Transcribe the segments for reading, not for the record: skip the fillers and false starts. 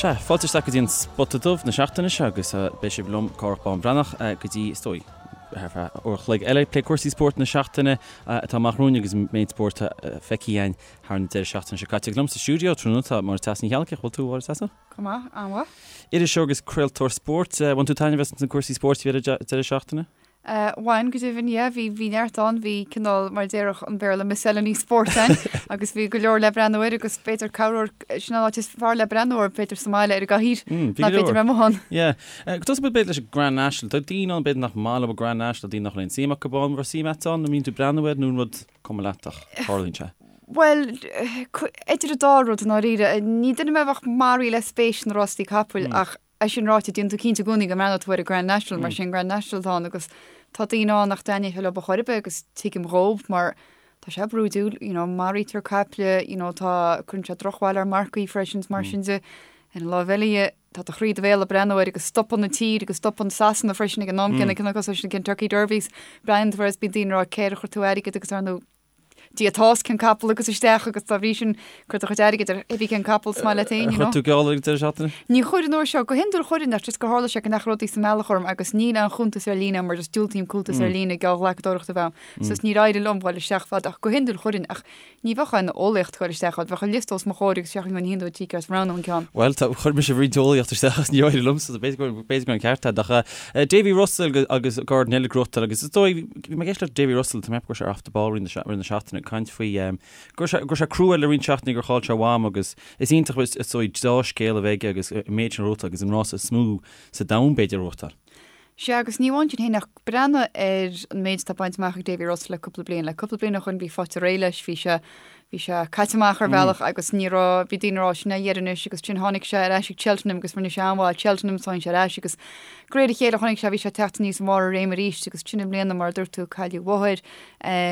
Sea, fáilte isteach go dtí an Spota Dubh na seachtaine seo agus beidh sibh liom, Cárthach Bán Breathnach, go dtí, is dóigh, thar feadh uair a chloig eile ag plé cúrsaí spóirt na seachtaine atá amach romhainn agus an méid spóirt atá feicthe againn thar an deireadh seachtaine seo caite. Agus liom sa stiúideo tráthnóna tá Máire Treasa Ní Cheallaigh, bhfuil tú, Mháire Treasa? Go maith, an-mhaith. Iriseoir agus craoltóir spóirt. Bhain tú taitneamh as na cúrsaí spóirt a bhí ar an deireadh seachtaine? Bhain, go deimhin, yeah, bhí, bhí neart ann, bhí cineál, mar a déarfadh an Béarla, miscellany spóirt ann agus bhí go leor le breathnú air agus b'fhéidir corruair, sin an áit is fearr le breathnú air, b'fhéidir sa mbaile ar an gcathaoir, ná b'fhéidir bheith amuigh ann. Yeah. Go dtosóidh muid b'fhéidir leis an Grand National. Tá daoine ann b'fhéidir nach maith leo an Grand National, daoine nach bhfuil aon suim acu ann, an raibh suim agat ann, an mbíonn tú ag breathnú air nó an rud cuma leat ach tarlaíonn sé? Bhuel, idir an dá rud i ndáiríre. Ní duine mé a bheadh maraithe le spéis sna rástaí capaill ach É sin ráite, déanann tú cinnte i gcónaí go mbreathnóidh tú ar an Grand National mar sé an Grand National atá ann agus tá daoine ann nach dtaitneodh sé leo ar chor ar bith agus tuigim dhóibh mar tá sé brúidiúil, you know, maraítear caiple, you know, tá, cuireann sé drochbhail ar marcaigh freisin is mar sin de. Ar an láimh eile dhe, tá do chroí i do bhéal ag breathnú air agus stopann an tír agus stopann Sasana freisin ag an am céanna, cineál cosúil leis na Kentucky Derbies, breathnaíonn tú air is bíonn daoine ag rá cé ar chuir tú airgead agus ar ndóigh Dia atá os cionn capall agus isteach agus dá bhrí sin cuir do chuid airgid ar cibé cén capall is maith leat féin, you know. Chuir tú geall ar an deireadh seachtaine? Ní chuir an uair seo. Go hiondúil chuirfinn ach just gur tharla sé go ndeachaigh rudaí sa mbealach orm agus níl aon chuntas ar líne agam mar just diúltaím cuntas ar líne geallghlacadóireachta a bheith agam. So níor éirigh liom dhul isteach fad ach go hiondúil chuirfinn ach ní bheadh aon eolaíocht ag dul isteach ann. Bheadh an liosta os mo chomhair agus seachtain go hiondúil tícear is roghnú an ceann. Bhuel, tá, chuir mise roinnt eolaíocht isteach agus níor éirigh liomsa, so b'fhéidir go, b'fhéidir go raibh an ceart agat ach Davy Russell agus Gordon Elliott ag gnóthachtáil agus is dóigh, bhí mé ag éisteacht le Davy Russell, tá mé ag ceapadh go raibh sé ar Off the Ball roinnt na seachtaine ag caint faoi go raibh sé go raibh sé crua le roinnt seachtainí gur chaill sé a mham agus is iontach is dóigh dea-scéal a bheith aige agus an méid sin a ghnóthachtáil agus an rása is mó sa domhan b'fhéidir a ghnóthachtáil. Sea, agus ní amháin sin féin ach breathnaigh ar an méid atá bainte amach ag Davy Russell le cúpla bliain. Le cúpla bliain ó shoin bhí faighte réidh leis, bhí sé Bhí sé caite amach ar bhealach agus ní raibh, bhí daoine ag rá sin é a dheireadh anois agus ansin tháinig sé ar ais ag Cheltenham agus rinne sé an-mhaith ag Cheltenham so tháinig sé ar ais agus de réir a chéile chonaic sé, bhí sé ag teacht aníos i mbarr a réime arís agus ansin i mbliana mar a dúirt tú cailleadh a mháthair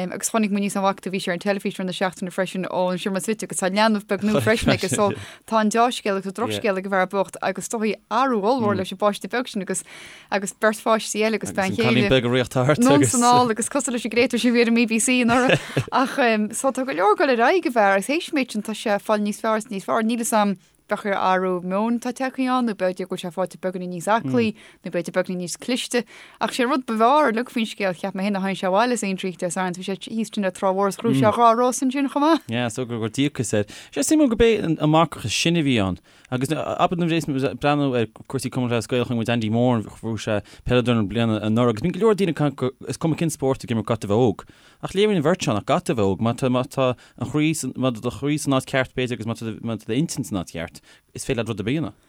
agus chonaic muid níos an bhfaca tú bhí sé ar an teilifís i rith na seachtaine freisin ón seomra suite agus tá leanbh beag nua freisin aige so tá an deá-scéal agus an drochscéal ag an bhfear bocht agus is dóigh athrú ollmhór leis an bpáiste beag sin agus agus beirt pháistí eile agus bean chéile. Agus an cailín beag ag rith thart agus. Anonn 's anall agus cosúil leis an gcréatúr sin a bhí ar an mBBC anuraidh. Ach so tá go leor ag dul ar aghaidh ag an bhfear agus théis an méid sin tá sé ag fáil níos fearr is níos fearr. Níl fhios a'm b'fhéidir athrú meoin atá tagtha ann nó b'fhéidir go bhfuil sé faighte beagáinín níos aclaí nó b'fhéidir beagáinín níos cliste. Ach sé an rud ba bhfearr uilig faoin scéal cheap mé féin ná tháinig sé abhaile as Aintree Dé Sathairn bhí sé thíos ansin ar Trá Mhór is ghnóthaigh sé dhá rás ansin chomh maith. Yeah, so gur díocas air. Sé suimiúil gurb é an marcach is sine a bhí ann. Agus abair nuair a bhíos muid ag breathnú ar cúrsaí Cumann Lúthchleas Gael chonaic muid Andy Moran bhuaigh sé peileadóir na bliana anuraidh agus bíonn go leor daoine ag caint go is cuma cén spórt ag imirt caithfidh tú a bheith óg. Ach léiríonn an bheirt seo nach gcaithfidh tú a bheith óg. Má tá má tá an chroí san má tá do chroí san áit ceart b'fhéidir agus má tá má tá d'intinn san áit cheart is féidir leat rud ar bith a dhéanamh.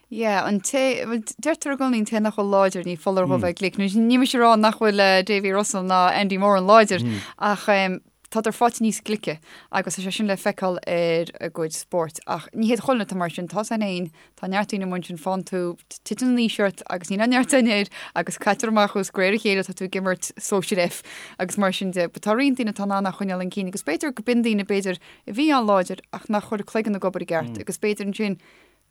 Yeah, an té, bhuel deirtear i gcónaí an té nach bhfuil láidir ní foláir dhó bheith glic. Ní mise ag rá nach bhfuil Davy Russell ná Andy Moran láidir ach tádar faighte níos glice agus tá sé sin le feiceáil ar a gcuid spóirt. Ach ní hiad chuile dhuine atá mar sin, tá san fhéin, tá neart daoine amuigh ansin, faigheann tú, titeann an aois ort agus níl aon neart ann air agus caitear amach thú is de réir a chéile tá tú ag imirt sóisir F agus mar sin de. But tá roinnt daoine atá in ann é a choinneáil chun cinn agus b'fhéidir go b'in daoine b'fhéidir a bhí an-láidir ach nach chuir cloigeann ag obair i gceart agus b'fhéidir ansin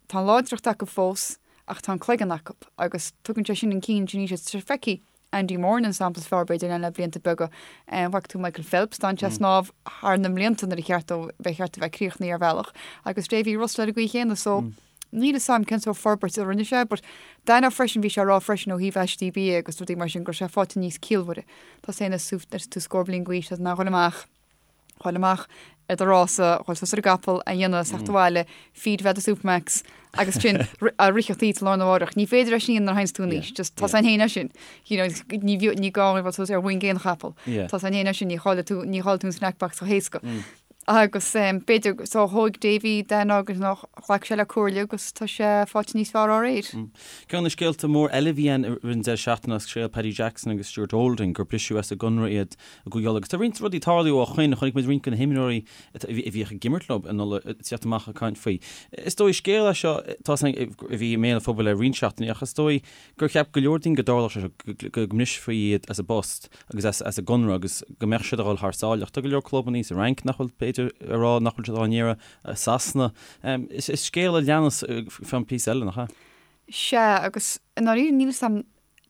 tá an láidreacht acu fós ach tá an cloigeann acu agus tugann sé sin an cinn sin aníos. Feicfidh Andy Moran an sampla is fearr b'fhéidir le blianta beaga. Bhfaca tú Michael Phelps, d'fhan sé ag snámh thar na mblianta nuair a cheart dó bheith cheart a bheith críochnaithe ar bhealach agus Davy Russell ar an gcaoi chéanna so níl fhios a'm cén sórt forbairt a rinne sé but d'aithneofá freisin bhí sé ag rá freisin ó thaobh aistí bia agus rudaí mar sin go raibh sé faighte níos ciallmhaire. Tá sé ina tú scór bliain d'aois tá tú in ann dhul amach dhul amach ar do rása, dhul suas ar an gcapall, a dhéanamh, theacht abhaile, feed a bheith do Supermacs agus sin a ritheacht í sa lá arna mhárach. Ní féidir é sin a dhéanamh nuair a théanns tú in aois. Just tá san fhéin é sin. You know, ní bhí- ní gá a bheith suas ar mhuin aon chapall. Yeah. Tá san fhéin é sin, ní chaillfidh tú, ní chaillfidh tú an snack box chomh héasca. Agus um, b'fhéidir, so thóig Davy Dan agus nach ghlac sé le comhairle agus tá sé faighte níos fearr dá réir. Ceann de na scéalta mór eile a bhí ann i rith an deireadh seachtaine ná scéal Paddy Jackson agus Stuart Olding gur briseadh as a gconradh iad i gCúige Uladh. Agus tá roinnt rudaí ag tarlú ó shoin, chonaic muid roinnt de na himreoirí a bhíodh ag imirt leo in Ulaidh ag teacht amach ag caint faoi. Is dóigh scéal é seo tá a bhí i mbéal an phobail le roinnt seachtainí ach is dóigh gur cheap go leor daoine go dtarlódh sé seo, go mbrisfí iad as a bpost agus as a gconradh agus go mbeadh siad ag dul thar sáile. Ach tá go leor clubanna sa Fhrainc nach bhfuil, b'fhéidir, ag rá nach bhfuil siad á n-iarraidh, i Sasana. Is scéal a leanas fán píosa eile, nach ea? Sea, agus i ndáiríre níl 'fhios a'm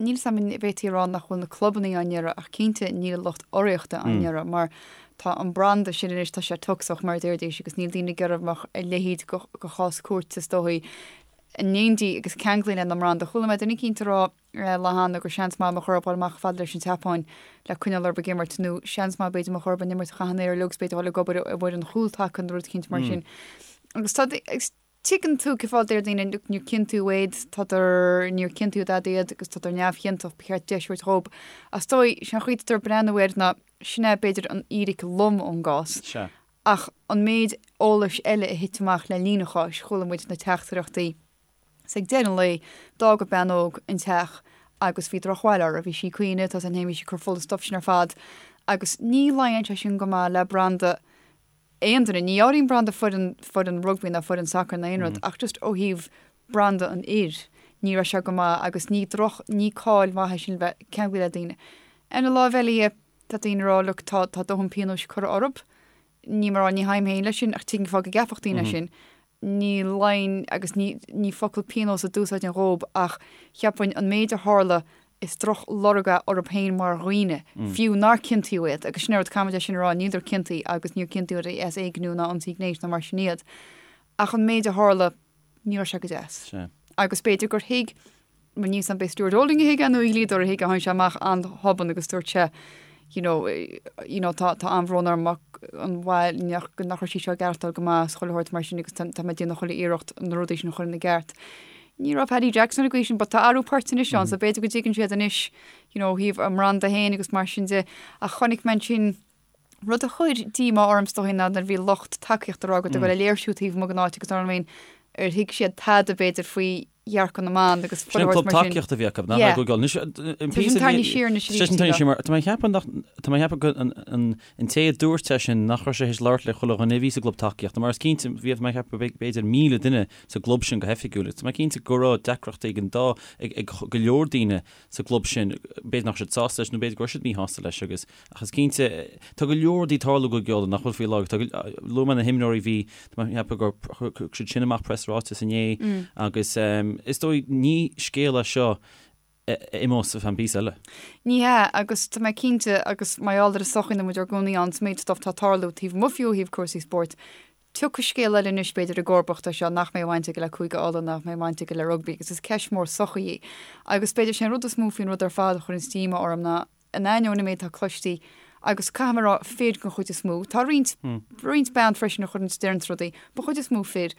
Níl 'fhios a'm an bhféadfaí a rá nach bhfuil na clubannaí á n-iarraidh ach cinnte níl an lucht urraíochta á n-iarraidh mar tá an branda sin anois, tá sé tocsach mar a déarfaidís agus níl daoine ag iarraidh go mbeadh a leithéid de chás cúirte is dóigh. In éindí agus ceanglaithe lena mbranda. Chuala mé duine eicínt ag rá lá cheana gur seans maith mba chóir dóibh dhul amach fad leis an tSeapáin le coinneáil orthu ag imirt nó seans maith b'fhéidir mba chóir dóibh an imirt a chaitheamh an aer uilig agus b'fhéidir dhul ag obair i bhfoireann chúltaca nó rud eicínt mar sin. Agus tá agus tuigeann tú cén fáth a deir daoine look níor ciontaíodh iad, tádar níor ciontaíodh dada iad agus tádar neamhchiontach, ba cheart deis a thabhairt dhób. Ach is dóigh, sé an chaoi atá ag breathnú air ná sin é b'fhéidir an fhíric lom ón gcás. Sea. Ach an méid eolais eile a thit amach le linn an cháis, chuala muid na teachtaireachtaí. 'S ag deireadh an lae, d'fhág an bean óg an teach agus bhí drochbhail uirthi. Bhí sí ag caoineadh, tá san bhí sí ag cur fola stuif sin ar fad. Agus ní luíonn sé sin go maith le branda aon duine. Ní áirím branda foireann, foireann rugbaí ná foireann sacair ná aon rud, ach just ó thaobh branda an fhir, ní raibh sé go maith agus ní droch, ní cáil mhaith é sin le bheith ceanglaithe le daoine. Ar an láimh eile dhe, Tá daoine ag rá, look, tá, tá dóthain pionóis curtha orthu. Níl mé ag rá, ní théim féin leis sin, ach tuigim cén fáth go gceapfadh daoine sin. Ní luíonn, agus ní, ní focal pionós a d'úsáidfinn dhób, ach cheapfainn an méid a tharla, is droch lorg é orthu féin mar dhaoine, fiú nár ciontaíodh iad, agus sin é an rud, caithfimid é sin a rá, níleadar ciontaithe agus níor ciontaíodh iad as éigniú ná ionsaí gnéis ná mar sin iad. Ach an méid a tharla, ní raibh sé go deas. Sea. Agus b'fhéidir gur thuig Níl a fhios a'm ab é Stuart Olding a thuig é nó a dhlíodóir a thuig é, tháinig sé amach an-thobann agus dúirt sé you know, you know tá tá an-bhrón orm an bhail nach nach raibh sí seo ag aireachtáil go maith is chuile shórt mar sin agus tá tá mé ag déanamh chuile iarracht na rudaí sin a chur ina gceart. Ní raibh Paddy Jackson ar an gcaoi sin but tá athrú poirt anois ann so b'fhéidir go dtuigeann siad anois you know ó thaobh a mbranda féin agus mar sin de ach chonaic mé ansin Rud a chuir díomá orm is dóigh ná nuair a bhí lucht tacaíochta ag rá go dtug le léirsiú taobh amuigh den áit agus dar ndóigh ar thuig siad tada b'fhéidir faoi dhearcadh na mban agus Sin an club tacaíochta a bhí acu, nach é Google. Anois, an píosa a bhí. Siar anois arís. Sin siar mar, tá mé ag ceapadh nach, tá mé ag ceapadh go an té a dúirt é sin nach raibh sé théis labhairt le chuile dhuine a bhí sa gclub tacaíochta, mar is cinnte, bhí, tá mé ag ceapadh b'fhéidir 1,000 duine sa gclub sin go hoifigiúil, agus tá mé cinnte go raibh deacrachtaí ag an dá, ag go leor daoine sa gclub sin, b'fhéidir nach raibh siad sásta leis nó b'fhéidir go raibh siad míshásta leis agus, ach is cinnte, tá go leor rudaí ag tarlú i gCúige Uladh nach bhfuil faoi láthair. Tá go, luaigh mé na himreoirí, bhí, tá mé ag ceapadh gur chuir siad sin amach preasráiteas inné agus is dóigh ní scéal é seo a imeos ar feadh píosa eile. Ní hea, agus tá mé cinnte, agus mar gheall ar an sochaí ina bhfuil muid ár gcónaí ann, sa méid stuff atá ag tarlú taobh amuigh fiú ó thaobh cúrsaí spóirt, Tiocfaidh scéal eile anois, b'fhéidir, i gcomharbacht air seo, nach mbeidh baint aige le Cúige Uladh, nach mbeidh baint aige le rugbaí, agus is ceist mhór sochaí í. Agus b'fhéidir, sé an rud is mó faoin rud ar fad a chuireanns díomá orm ná, in ainneoin an méid atá cloistí, agus caithfidh mé a rá, fir den chuid is mó, tá roinnt, roinnt bean freisin a chuireanns, deireanns rudaí, but chuid is mó fir,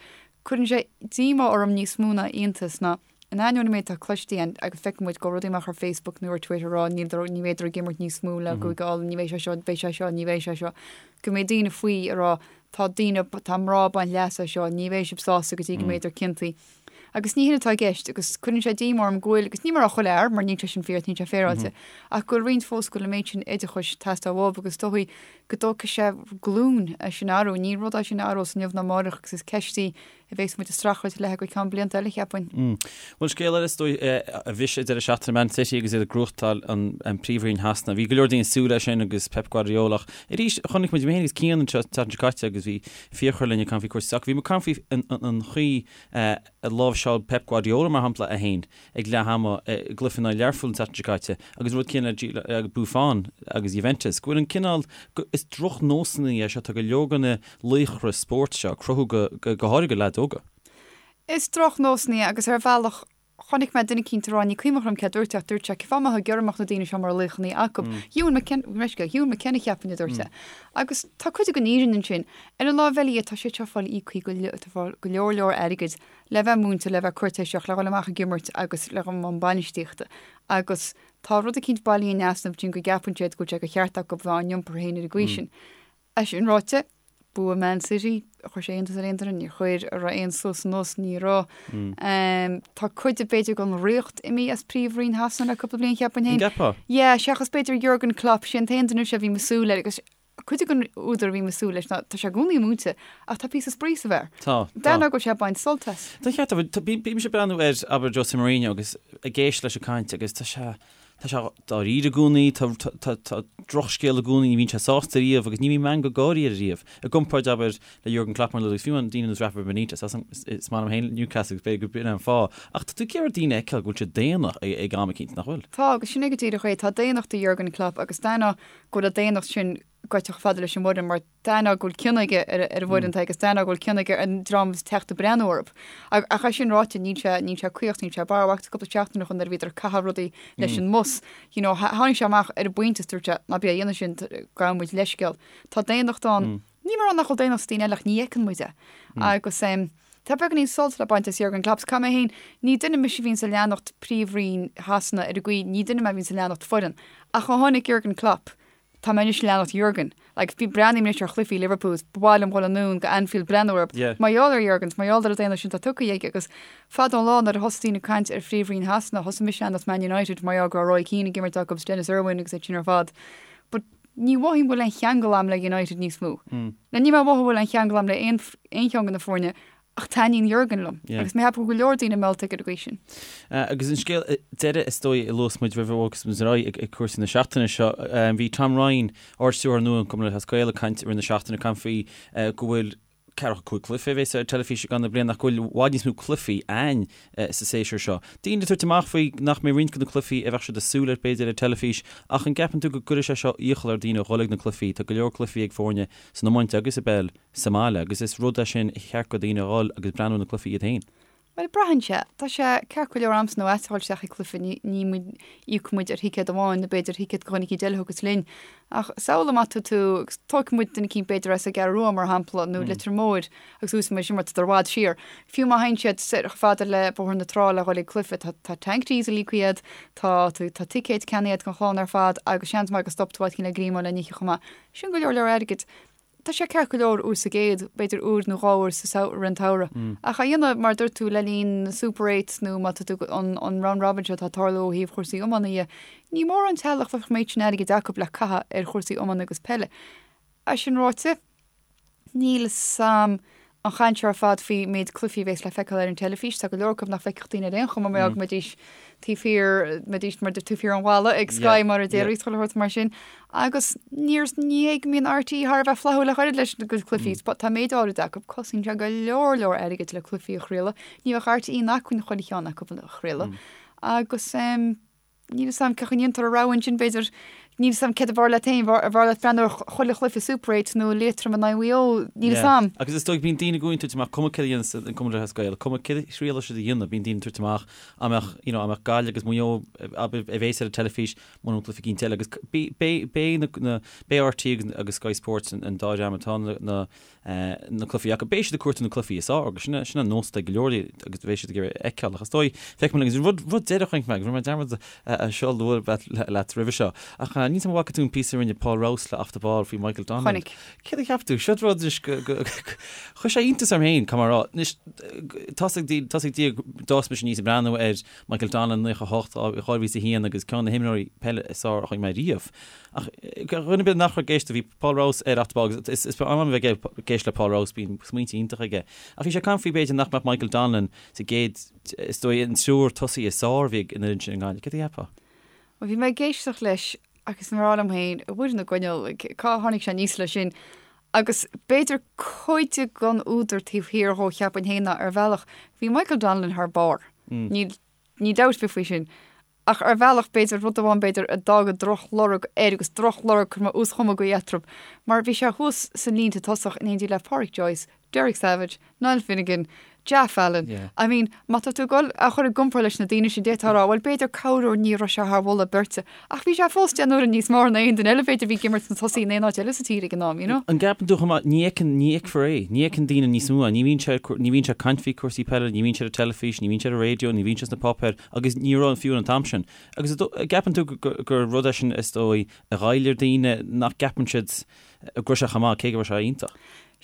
cuireann sé díomá orm níos mó ná iontas ná, In ainneoin an méid atá cloiste againn, agus feiceann muid go bhfuil rudaí amach ar Facebook nó ar Twitter ag rá níl ní bheidh ag imirt níos mó le Cúige Uladh, ní bheidh sé seo, beidh sé seo, ní bheidh sé seo, go mbeidh daoine faoi ag rá tá daoine, tá mná ag baint leas as seo, ní bheidh sibh sásta go dtí go mbeidh ciontaithe. Agus ní hin atá i gceist, agus cuireann sé díomá orm go bhfuil, agus níl mé ag rá chuile fhear, mar níl sé sin fíor, níl sé féaráilte, ach go bhfuil roinnt fós go bhfuil an méid sin oideachais ag teastáil uathu agus is dóigh go dtógfaidh sé glúin é sin a athrú, ní rud é sin a athrós inniu ná amárach agus is ceist í a bheas muid ag streachailt léi go ceann blianta eile, cheapfainn. Bhuel, scéal eile is dóigh a bhris an deireadh seachtaine Man City agus iad ag gnóthachtáil an Príomhroinn Shasana. Bhí go leor daoine ag súil leis sin agus Pep Guardiola ach arís chonaic muid, mé féin agus Cian an tseachtain seo caite agus bhí Fiachra linn ag caint faoi cúrsaí sacair, bhí muid ag caint faoi an chaoi a láimhseáil Pep Guardiola mar shampla é féin ag leath ama i gcluiche in aghaidh Learpholl an tseachtain seo caite agus an rud céanna le Buffon agus Juventus, go bhfuil an cineál, is drochnósanna é seo, tá go leor de na laochra spóirt seo ag cruthú go, go háirithe do leaids óga. Is drochnósanna é agus ar bhealach chonaic mé duine eicínt ag rá, ní cuimhin liom cé a dúirt é ach dúirt sé, cén fáth a mbeifeá ag iarraidh go mbeadh na daoine seo mar laochanna acu? Ewan McKenna, Ewan McKenna cheapfainn a dúirt é. Agus tá cuid den fhírinne ansin. Ar an láimh eile dhe, tá siad seo ag fáil íoctha go, tá fáil go leor leor airgid le bheith múinte, le bheith cúirtéiseach, le dhul amach ag imirt agus le dhul i mbun bainistíochta. Agus tá rud eicínt bailithe in easnamh ansin go gceapann siad go bhfuil sé de cheart acu bheith á n-iompar féin ar an gcaoi sin. É sin ráite, bua Man City, chuir sé iontas ar aon duine, níor chuir, an raibh aon suas anuas, ní raibh. Tá cuid de b'fhéidir den ríocht imithe as Príomhroinn Shasana le cúpla bliain cheapfainn féin. An gceapfá? Yeah, seachas b'fhéidir Jurgen Klopp, sé an t-aon duine seo a bhím ag súil air agus Cuid den údar a bhím ag súil leis ná tá sé i gcónaí ag múineadh ach tá píosa spraoi sa bhfear. Tá, tá. D'aithneofá go bhfuil sé ag baint sult as. Tá ceart agat. Tá, bímse ag breathnú ar, abair, Jose Mourinho agus ag éisteacht leis ag caint agus tá sé, tá sé dáiríre i gcónaí, tá, tá, tá, tá drochscéal i gcónaí, ní bhíonn sé sásta riamh agus ní bhíonn meangadh gáirí air riamh. I gcomparáid, abair, le Jurgen Klopp mar a luaigh tú agus fiú amháin daoine ar nós Rafa Benitez, is maith liom féin Newcastle agus b'fhéidir gurb in é an fáth. Ach tá tú ag iarraidh daoine a fheiceáil go bhfuil siad daonna ag am eicínt, nach bhfuil? Tá, agus sin é go díreach é. Tá daonnacht i Jurgen Klopp agus d'aithneofá go bhfuil an daonnacht sin. goite chomh fada leis an bhfoireann mar d'aithneofá go bhfuil cion aige ar an bhfoireann agus d'aithneofá go bhfuil cion aige ar an dream atá ag teacht ag breathnú orthu. Ach é sin ráite, níl sé, níl sé caoch, níl sé barrmhaith. Cúpla seachtain ó shoin nuair a bhíodar ag caitheamh rudaí leis an mbus, you know, tháinig sé amach ar an bpointe is dúirt sé, ná bí á dhéanamh sin, gabhaim leithscéal. Tá daonnacht ann. Níl mé ag rá nach bhfuil daonnacht sna daoine eile ach ní fheiceann muid é. Agus tá beagáinín sult le baint as Jurgen Klopp. Caithfidh mé féin, ní duine mise a bhíonns ag leanacht Príomhroinn Shasana ar an gcaoi, ní duine mé a bhíonns ag leanacht foireann. Ach ó tháinig Jurgen Klopp, tá mé anois ag leanacht Jurgen. Like, bí, breathnaím anois ar chluichí Liverpool, is ba mhaith liom dhul anonn go Anfield breathnú orthu. Yeah. Mar gheall ar Jurgen, mar gheall ar an daonnacht sin atá tugtha aige agus fada an lá nuair a thosaigh daoine ag caint ar Phríomhroinn Shasana, thosaigh mise ag leanacht Man United mar gheall go raibh Roy Keane ag imirt acu agus Denis Irwin agus iad sin ar fad. But ní mhothaím go bhfuil aon cheangal a'm le United níos mó. Now níl mé ag mothú go bhfuil aon cheangal a'm le aon aon cheann de na foirne ach taitníonn Jurgen liom agus mé ag ceapadh go bhfuil go leor daoine meallta aige ar an gcaoi sin. Agus an scéal deiridh is dóigh a luas muid roimh a bhogfas muid ar aghaidh ag cúrsaí na seachtaine seo, bhí Tom Ryan, Ard-Stiúrthóir nua an Chumann Lúthchleas Gael ag caint i rith na seachtaine, ag caint faoi go bhfuil ceathracha 5 cluiche a bheas ar teilifís i gcaitheamh na bliana ach go bhfuil i bhfad níos mó cluichí ann sa séasúr seo. Daoine ag tabhairt amach faoi nach mbeidh roinnt de na cluichí a bheadh siad ag súil air b'fhéidir ar teilifís ach an gceapann tú go gcuirfidh sé seo iachall ar dhaoine a dhul ag na cluichí? Tá go leor cluichí ag foirne san iomáint agus i bpeil sa mbaile agus is rud é sin a cheart go daoine a dhul agus breathnú ar na cluichí iad féin. Bhuel, braitheann sé. Tá sé ceart go leor a'msa nó a'dsa a dhul isteach ag cluiche, ní, ní muid, íocann muid ar thicéad amháin nó b'fhéidir thicéad go dhuine eicínt eile a thiocfas linn. Ach samhlaigh má tá tú, agus tógfaidh muid duine eicínt b'fhéidir as an gCeathrú Rua mar shampla nó Leitir Móir agus úsáidfidh muid sin mar tá i bhfad siar. Fiú má théann siad soir chomh fada le Bóthar na Trá le dhul ag cluiche, tá, tá tank diesel íoctha agat, tá, tá ticéid ceannaithe agat don chlann ar fad agus seans maith go stop tú áit eicínt le greamú le n-ithe chomh maith. Sin go leor leor airgid. Tá sé ceart go leor uair sa gcéad, b'fhéidir uair nó dhá uair sa rith an tsamhraidh. Ach á dhéanamh, mar a dúirt tú, le linn na Super Eights nó má tá tú, an an round robin seo atá ag tarlú ó thaobh chúrsaí iomána dhe, ní mórán teaghlach a bheadh an méid sin airgid acu le caitheamh ar chúrsaí iomána agus peile. É sin ráite, níl 'fhios a'm an chaint seo ar fad faoi méid cluichí a bhéas le feiceáil ar an teilifís, tá go leor acu nach bhfeicfeadh daoine ar aon chuma mar go mbeidís taobh thiar, mbeidís mar taobh thiar an bhalla ag Sky mar a déarfaí, chuile shórt mar sin. Agus níor, ní hé go mbíonn RTÉ thar a bheith flaithiúil ach oiread leis na gcuid cluichí, tá méid áirid acu, cosnaíonn sé go leor leor airgid le cluichí a chraoladh, ní bheadh RTÉ in acmhainn chuile cheann acu a chraoladh. Agus. Níl 'fhios a'm cén chaoi a ndéantar an rogha ansin, b'fhéidir, níl 'fhios a'm céard ab fhearr leat féin, ab fhearr leat breathnú ar chuile chluiche Super 8 nó Liatroim in aghaidh Mhaigh Eo, níl 'fhios a'm. Agus is dóigh, bíonn daoine i gcónaí ag tabhairt amach, cuma céard a dhéanas an Cumann Lúthchleas Gael, cuma céard a thriailfidh siad a dhéanamh, bíonn daoine ag tabhairt amach, dá mbeadh, you know, dá mbeadh Gaillimh agus Maigh Eo a bhéas ar an teilifís, mura bhfuil cluiche eicínt eile, agus beidh na, beidh RTÉ agus Sky Sports an dá dhream atá na, na cluichí acu. Beidh siad ag cuartú na cluichí is fearr agus sin sin an nós atá ag go leor agus beidh siad ag iarraidh a fheiceáil ach is dóigh, feicfidh muid agus rud rud deireadh a chonaic mé agus rinne mé dearmad é seo a lua leat roimhe seo ach níl 'fhios a'm an bhfaca tú an píosa a rinne Paul Rouse le Off the Ball faoi Michael Donnellan. Chonaic. Céard a cheap tú? Seo rud anois go go chuir sé iontas orm féin, caithfidh mé a rá. Anois tá's ag tá's ag Dia d'fhás mise aníos ag breathnú ar Michael Donnellan 98, 2001 agus ceann de na himreoirí peile is fearr a chonaic mé riamh. Ach do dhuine ar bith nach raibh ag éisteacht, bhí Paul Rouse ar Off the Ball agus is maith liom a bheith ag éisteacht le Paul Rouse, bíonn smaointe iontacha aige. Ach bhí sé ag caint faoi b'fhéidir nach mbeadh Michael Donnellan sa gcéad, is dóigh, an triúr tosaí is fearr a bhí ag an fhoireann sin i nGaillimh. Céard a cheapfá? Bhuel, bhí mé ag éisteacht leis agus mé ag rá liom féin, a Mhuire na gCoinneal, cá tháinig sé aníos leis sin? Agus b'fhéidir cuid den údar taobh thiar dhó, cheapfainn féin, ná ar bhealach, bhí Michael Donnellan thar barr. Níl Ní dabht ar bith faoi sin. Ach ar bhealach, b'fhéidir, rud amháin b'fhéidir a d'fhág drochlorg air, agus drochlorg, cuirfidh mé uaschomma eatarthu, mar bhí sé thuas sna línte tosach in éindí le Pádraic Joyce, Derek Savage, Niall Finnegan, Jaff Allen. I mean, má tá tú ag dul á chur i gcomparáid leis na daoine sin, d'fhéadfá a rá, bhuel, b'fhéidir corruair ní raibh sé thar mholadh beirte. Ach bhí sé fós deich n-uaire níos fearr ná aon duine eile, b'fhéidir, a bhí ag imirt sna tosaí in aon áit eile sa tír ag an am, you know. An gceapann tú chomh maith, ní fheiceann, ní fheicfear é, ní fheiceann daoine níos mó é, ní bhíonn sé, ní bhíonn sé ag caint faoi cúrsaí peile, ní bhíonn sé ar an teilifís, ní bhíonn sé ar an raidió, ní bhíonn sé sna páipéir agus ní raibh fiú an t-am sin. Agus an gceapann tú gur rud é sin is dóigh a ghoill ar daoine nach gceapann siad go raibh sé chomh maith, cé go raibh sé iontach.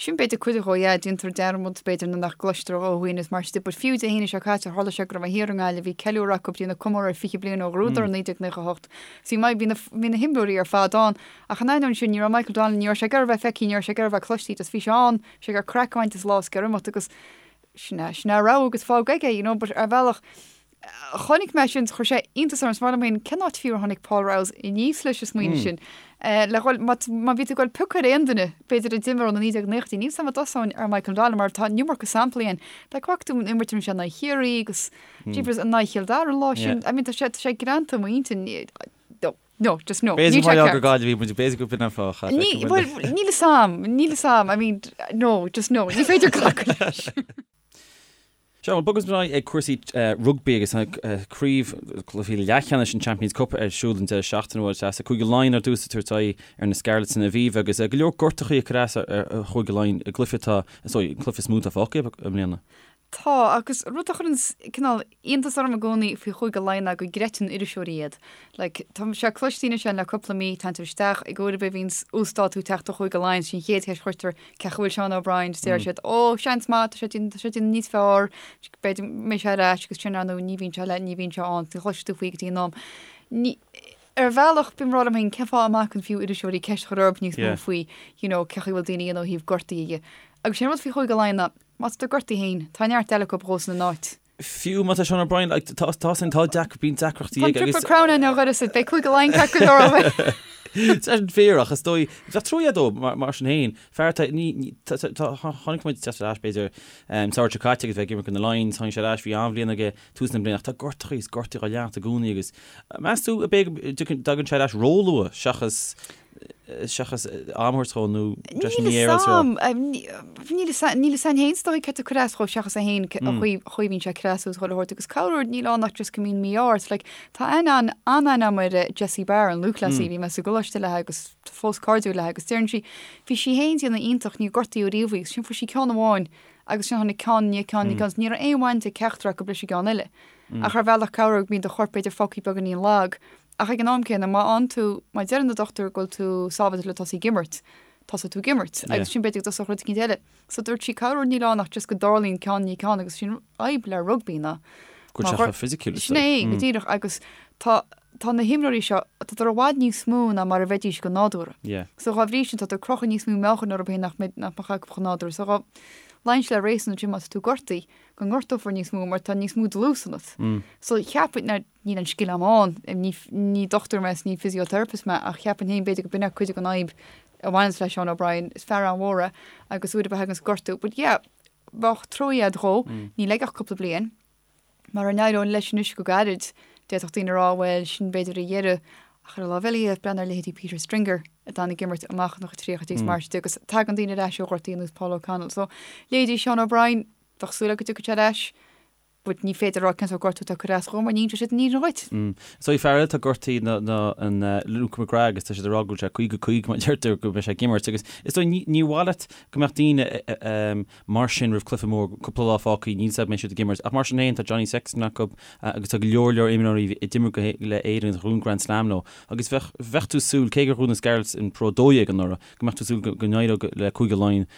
Sin b'fhéidir cuid dhó, yeah, déantar dearmad b'fhéidir nuair nach gcloistear ó dhaoine is mar sin de, but fiú Dé hAoine seo caite, tharla sé go raibh mé thiar i nGaillimh, bhí ceiliúradh acu, ag déanamh comóradh ar 20 bliain ó ghnóthaíodar i 1998. So bhí, bhí na, bhí na himreoirí ar fad ann, ach in ainneoin sin, ní raibh Michael Donnellan, ní raibh sé ag iarraidh a bheith feicthe, ní raibh sé ag iarraidh a bheith cloiste, just bhí sé ann, bhí sé ag iarraidh craic a bhaint as an lá is ag iarraidh imeacht agus sin é, sin é a rogha agus fág aige, you know, but ar bhealach, Chonaic mé sin, chuir sé iontas orm, is mar liom féin, cén áit fiú ar tháinig Paul Rouse aníos leis an smaoineamh sin? Le dhul, má má bhí tú ag dul piocadh ar aon duine, b'fhéidir a d'imir ó na 1990idí, níl 's a'm an dtosóinn ar Michael Donnellan mar tá an iomarca samplaí ann. Like, bhfaca tú an imirt a rinne sé in aghaidh Chiarraí agus jeepers in aghaidh Chill Dara an lá sin, I mean tá sé, tá sé greanta i m'intinn. No, just no. B'fhéidir mar gheall gur Gaillimh muid, b'fhéidir go b'in an fáth. Ní, bhuel, níl a fhios a'm, níl a fhios a'm, I mean, no, just no, ní féidir glacadh leis. Sea, bhuel, bogfaidh muid ar aghaidh ag cúrsaí rugbaí agus tá craobh cluichí leathcheannais an Champions Cup ar siúl an deireadh seachtaine uair deas. Cúige Laighean ar dtús ag tabhairt aghaidh ar na Scarlets san Aviva agus go leor gortachaí ag cur as ar Chúige Laighean i gcluiche atá, is dóigh, an cluiche is mó atá fágtha i mbliana. Tá, agus rud a chuireann cineál iontas orm i gcónaí faoi Chúige Laighean ná go gcreideann iriseoirí iad. Like, tá sé cloiste anois le cúpla mí, téann tú isteach, ag uair ar bith a bhíonns uasdátú ag teacht ó Chúige Laighean, sin an chéad cheist a chuirtear, cén chaoi a bhfuil Seán O'Brien, is deir siad, ó, seans maith, tá sé déanamh, tá sé déanamh níos fearr, b'fhéidir go mbeidh sé ar ais agus sin ar ndóigh ní bhíonn sé le, ní bhíonn sé ann, ní chloisfidh tú faoi go dtí an am. Ní, ar bhealach, bím ag rá liom féin, cén fáth a mbacann fiú iriseoirí ceist a chur orthu níos mó faoi, you know, cén chaoi a bhfuil daoine ó thaobh gortaithe dhe. Agus sin an rud faoi Chúige Laighean ná, Má tá tú gortaithe féin, tá neart eile acu dhósan ina n-áit. Fiú má tá Seán O'Brien, like, tá, tá sin, tá deac, bíonn deacrachtaí Tá an aige agus. Triple Crown ann ó dhoras, beidh Cúige Laighean ceart go leor ó Tá sin fíor ach is dóigh, bheadh trua dó mar, mar sin féin. Fear atá, ní, ní, tá, tá, tá, chonaic muid teacht ar ais b'fhéidir, um, samhradh seo caite agus bheith ag imirt do na Lions, tháinig sé ar ais, bhí an-bhliain aige tús na bliana ach tá gortachaí is gortaí á leanacht i gcónaí agus meas tú ab é go dtagann sé ar ais róluath seachas seachas am a thabhairt dhó nó breis Níl a fhios a'm, níl a fhios níl a fhios a'm féin is dóigh céard atá ag cur as dhó seachas é féin an chaoi chaoi a bhíonn sé ag cur as agus chuile shórt agus corruair níl ann ach just go mbíonn mí-ádh ort like tá aithne an an-aithne a'm ar Jessie Barr an lúthchleasaí bhí mé sa gcoláiste léi agus tá fós cairdiúil léi agus deireann sí bhí sí féin déanamh iontach níor gortaíodh riamh í agus sin fuair sí ceann amháin agus sin tháinig ceann i ndiaidh ceann i ndiaidh ceann ní raibh aon bhaint ag ceachtar acu leis an gceann eile ach ar bhealach corruair bíonn do chorp b'fhéidir fágtha beagáinín lag Ach ag an am céanna, má fhaigheann tú, má deireann na dochtúir go bhfuil tú sábháilte le tosaí ag imirt, tosóidh tú ag imirt. Agus sin b'fhéidir go dtosódh rud eicínt eile. So dúirt sí, corruair níl ann ach just go dtarlaíonn ceann i ndiaidh ceann agus sin fhadhb le rugbaí ná. Go bhfuil sé chomh fisiciúil is Sin é, go díreach agus tá tá na himreoirí seo, tádar i bhfad níos mó ná mar a bheidís go nádúrtha. So dhá bhrí sin tádar ag crochadh níos mó meáchain orthu féin nach mbeidh nach mbeadh acu go nádúrtha. So dhá luíonn sé le réasún ansin má tá tú gortaithe go ngortófar níos mó mar tá níos mó dlús ionat. So cheapfainn, now Níl an scil a'm ann, ní dochtúir mé is ní physiotherapist mé ach cheapfainn féin b'fhéidir go b'in é cuid den fhadhb a bhaineanns le Seán O'Brien, is fear an-mhór é agus uair ar bith a thaganns gortú. But yeah, bheadh trua a'd dhó, níl aige ach cúpla bliain. Mara n-éireoidh leis anois go gairid, d'fhéadfadh daoine a rá bhuel, sin b'fhéidir a dheireadh ach ar an lámh eile dhe, breathnaigh ar leithéidí Peter Stringer a d'fhan ag imirt amach ina chuid tríochaidí is mar sin de agus tagann daoine ar ais ó ghortaí ar nós Paul O'Connell. So, leithéidí Seán O'Brien, bheadh súil agat go dtiocfaidh sé ar ais. But ní féidir a rá cén sórt gortú atá ag cur as dhó mar ní inseoidh siad an fhírinne dhuit. So fear eile atá gortaithe ná an Luke McGrath agus tá siad ag rá go bhfuil sé 50 50 mar deirtear go mbeidh sé ag imirt agus is dóigh ní ní mhaith leat go mbeadh daoine mar sin roimh cluiche mór cúpla lá fágtha níl 's a'd mbeidh siad ag imirt ach mar sin féin tá Johnny Sexton acu agus tá go leor leor imreoirí a d'imir go le Éirinn agus a ghnóthaigh Grand Slam leo agus bheadh bheadh tú súil cé gur ghnóthaigh na Scarlets an Pro 12 anuraidh go mbeadh tú súil go n-éireodh le Cúige Laighean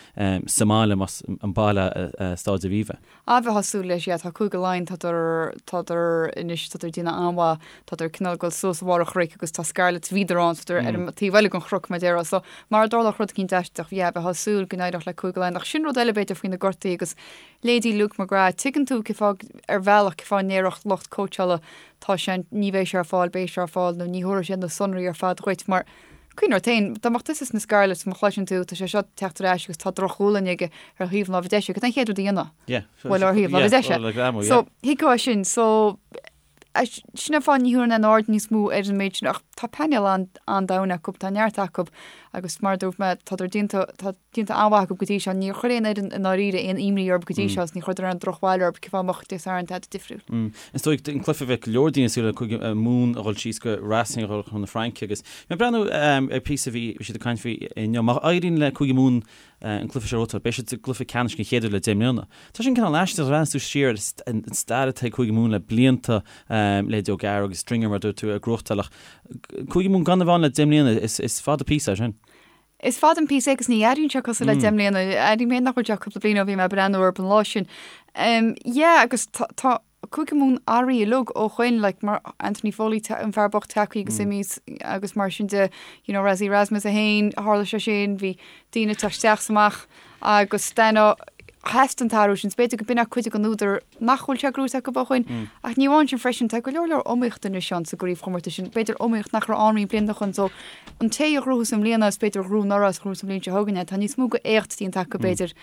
sa mbaile más an baile Staid Aviva. Ah bheifeá ag súil leis, yeah, tá Cúige Laighean, tádar, tádar anois, tádar ag déanamh an-mhaith, tádar cineál ag dul suas a bharr an chnoic agus tá Scarlets, bhíodar ann, so tádar ar an taobh eile den chnoc, mar a déarfá. So, mara dtarlódh rud eicínt aisteach, yeah, bheifeá ag súil go n-éireodh le Cúige Laighean. Ach sin rud eile, b'fhéidir, faoi na gortaí agus leithéidí Luke McGrath, tuigeann tú cén fáth, ar bhealach, cén fáth a ndéarfadh lucht cóitseála, tá sé, ní bheidh sé ar fáil, beidh sé ar fáil, nó ní thabharfaidh sé na sonraí ar fad dhuit, mar, Cuimhnigh ort féin, dá mbeadh tusa sna Scarlets, má chloiseann tú, tá sé seo ag teacht ar ais agus tá droch-ghualainn aige ar thaobh na láimhe deise, cad é an chéad rud a dhéanfá? Yeah. Bhuel, ar thaobh láimhe deise. So, thuigfeá sin. So, sin an fáth ní thabharfainn aon aird níos mó ar an méid sin, ach tá painéal an-domhain acu, tá neart acu agus mar a dúirt mé, tádar déanta, tá déanta an-mhaith acu go dtí seo. Níor chuir aon fhoireann i ndáiríre aon imní orthu go dtí seo agus ní chuireadar aon drochbhail orthu, cén fáth a mbeadh Dé Sathairn tada difriúil. Is dóigh an cluiche a bheadh go leor daoine ag súil le Cúige Mumhan a dhul síos go Racing a dhul chun na Fraince agus mé ag breathnú ar píosa a bhí siad ag caint faoi inniu. Má éiríonn le Cúige Mumhan an cluiche seo a ghnóthachtáil, beidh siad sa gcluiche ceannais den chéad uair le 10 mbliana. Tá sin cineál aisteach, breathnaíonn tú siar ar an stair atá ag Cúige Mumhan le blianta, leithéidí O'Gara agus Stringer mar a dúirt tú ag gnóthachtáil ach Cúige Mumhan gan a bheith ann le 10 mbliana, is fada píosa é sin. Is fada an píosa é agus ní airíonn sé cosúil le 10 mbliana. Airím féin nach bhfuil sé ach cúpla bliain ó bhí mé ag breathnú orthu an lá sin. Yeah agus tá tá Cúige Mumhan athraithe uilig ó shoin like mar Anthony Foley an fear bocht tagtha agus imithe agus mar sin de you know Rassie Erasmus é féin tharla sé sin bhí daoine ag teacht isteach is amach agus then theastaigh an t-athrú sin. B'fhéidir go b'in é cuid den údar nach bhfuil sé gnóite acu ó shoin. Ach ní amháin sin freisin, tá go leor leor iomaíochta anois ann sa gcraobhchomórtas sin. B'fhéidir iomaíocht nach raibh ann roinnt blianta ó shoin. So, an té a ghnóthós i mbliana is b'fhéidir a ghnóthódh anuraidh is a ghnóthós an bhliain seo chugainn é. Tá níos mó go éacht déanta acu b'fhéidir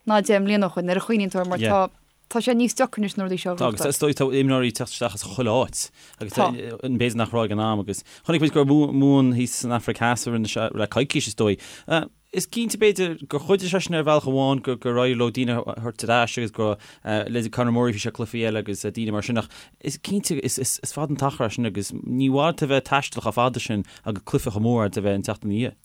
ná 10 mbliana ó shoin, nuair a chuimhníonn tú air mar tá. Tá sé níos deacra anois na rudaí seo a Tá, agus is dóigh tá imreoirí ag teacht isteach as chuile áit agus tá b'fhéidir nach raibh ag an am agus chonaic muid go raibh Mumhan thíos san Afraic Theas a rinne sé le coicís is dóigh. Is cinnte b'fhéidir gur chuidigh sé sin ar bhealach amháin go gur éirigh leo daoine a thabhairt ar ais agus go leithéidí Conor Murray bhí sé cluichí eile agus daoine mar sin ach is cinnte is fada an t-achar é sin agus ní mhaith leat a bheith ag taisteal chomh fada sin agus cluiche chomh mór agat a bheith an tseachtain ina dhiaidh.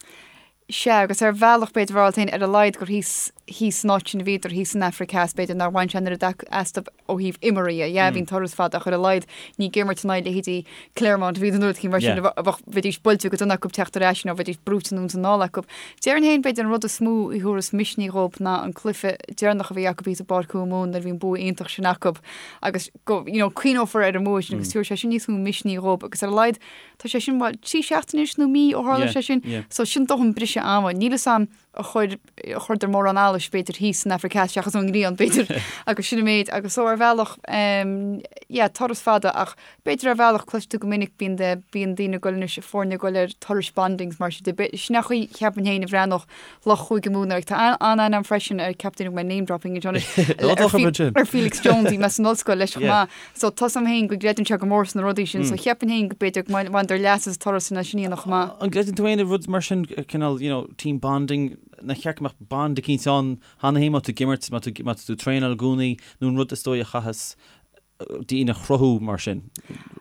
Sea, agus ar bhealach, b'fhéidir, a rá féin, ar a laghad gur thíos, thíos san áit sin a bhíodar, thíos san Afraic Theas, b'fhéidir nár bhain sé an oiread astu ó thaobh imeartha dhe. Yeah, bhí an turas fada ach ar a laghad ní ag imirt in aghaidh leithéidí Clermont a bhíodar nó rud éicint mar sin, a bheadh, bheidís buailte go dona acu teacht ar ais nó bheidís brúite anonn is anall acu. Déarfainn féin, b'fhéidir, an rud is mó a thabharfas misnigh dhób ná an cluiche deireanach a bhí acu thíos i bPáirc Chúige Mumhan nuair a bhí an bua iontach sin acu agus go, you know, cuimhneofar ar an mbua sin agus tabharfaidh sé sin níos mó misnigh dhób agus ar a laghad Tá sé sin, bhuel, 3 seachtaine anois nó mí ó tharla sé sin. So sin dóthain briseadh ama. Níl fhios a'm ar chuir, ar chuireadar mórán allais b'fhéidir thíos san Afraic Theas seachas an ghrian b'fhéidir agus sin an méid. Agus so ar bhealach, em, yeah, turas fada ach b'fhéidir ar bhealach cloistear go minic bíonn de, bíonn daoine ag goil anois, foirne ag goil ar turais bondings mar sin de. Sin an chaoi cheapfainn féin a bhreathnódh lucht Chúige Mumhan air. Tá an-aithne a'm freisin ar ceapaim go mbeidh name dropping anseo anois, ar Felix Jones, bhí mé san ollscoil leis chomh maith. So tá 'fhios a'm féin go gcreideann sé go mór sna rudaí sin, so cheapfainn féin go b'fhéidir go mbaineadar leas as turas sin sin a dhéanamh chomh maith. An gcreideann tú féin i rud mar sin, cineál, you know, team bonding, nár cheart go mbeadh bond eicínt ann cheana féin má tá tú ag imirt, má tá má tá tú ag traenáil i gcónaí, nó an rud is dóigh a chaitheas daoine a chruthú mar sin?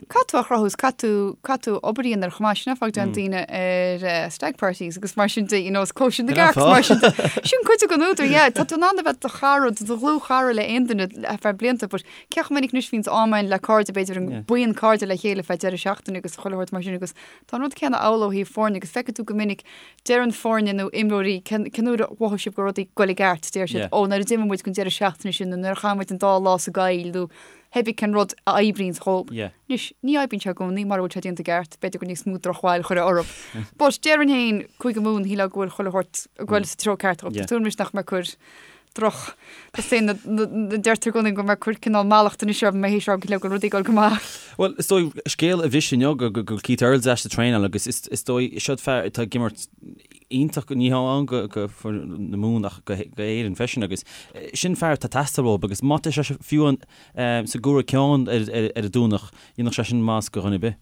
Caithfidh tú a chruthú is caithfidh tú, caithfidh tú obair a dhéanamh air chomh maith, sin an fáth go dtéann daoine ar stag parties agus mar sin de, you know, is cóisir na gcearc mar sin de. Sin cuid den údar, yeah, tá tú in ann a bheith do chara, do dhlúthchara le aon duine ar feadh blianta, but Cé chomh minic anois a bhíonns am againn le cairde, b'fhéidir an buíon cairde le chéile feadh deireadh seachtaine agus chuile shórt mar sin agus tá an rud céanna amhlaidh ó thaobh foirne agus feicfidh tú go minic deireann foirne nó imreoirí cén uair a mhothaigh sibh go raibh rudaí ag goil i gceart, deir siad ó nuair a d'imigh muid don deireadh seachtaine sin nó nuair a chaith muid an dá lá sa gcoill nó pé ar bith cén rud a oibríonns dhób. Anois, ní oibríonn sé i gcónaí mura bhfuil sé déanta i gceart, b'fhéidir gur níos mó drochbhail a chuirfeá orthu. But déarfainn féin, Cúige Mumhan, shílfeá go bhfuil chuile shórt ag goil sa treo ceart dhób. Tá súil anois nach mbeidh cur droch. Tá na deirtear i gcónaí go mbeidh cur cineál mallacht anois orm mé théis rá go bhfuil rudaí ag dul go maith. Bhuel, is dóigh, scéal a bhris inniu go bhfuil Keith Earls ar ais ag traenáil agus is dóigh, siod fear atá ag imirt iontach, ní hamháin go foireann na Mumhan ach go hÉirinn freisin agus sin fear atá ag teastáil uathu agus má tá sé fiú sa gcomhaireamh ceann ar an Domhnach, dhéanfadh sé sin maitheas go dhuine ar bith.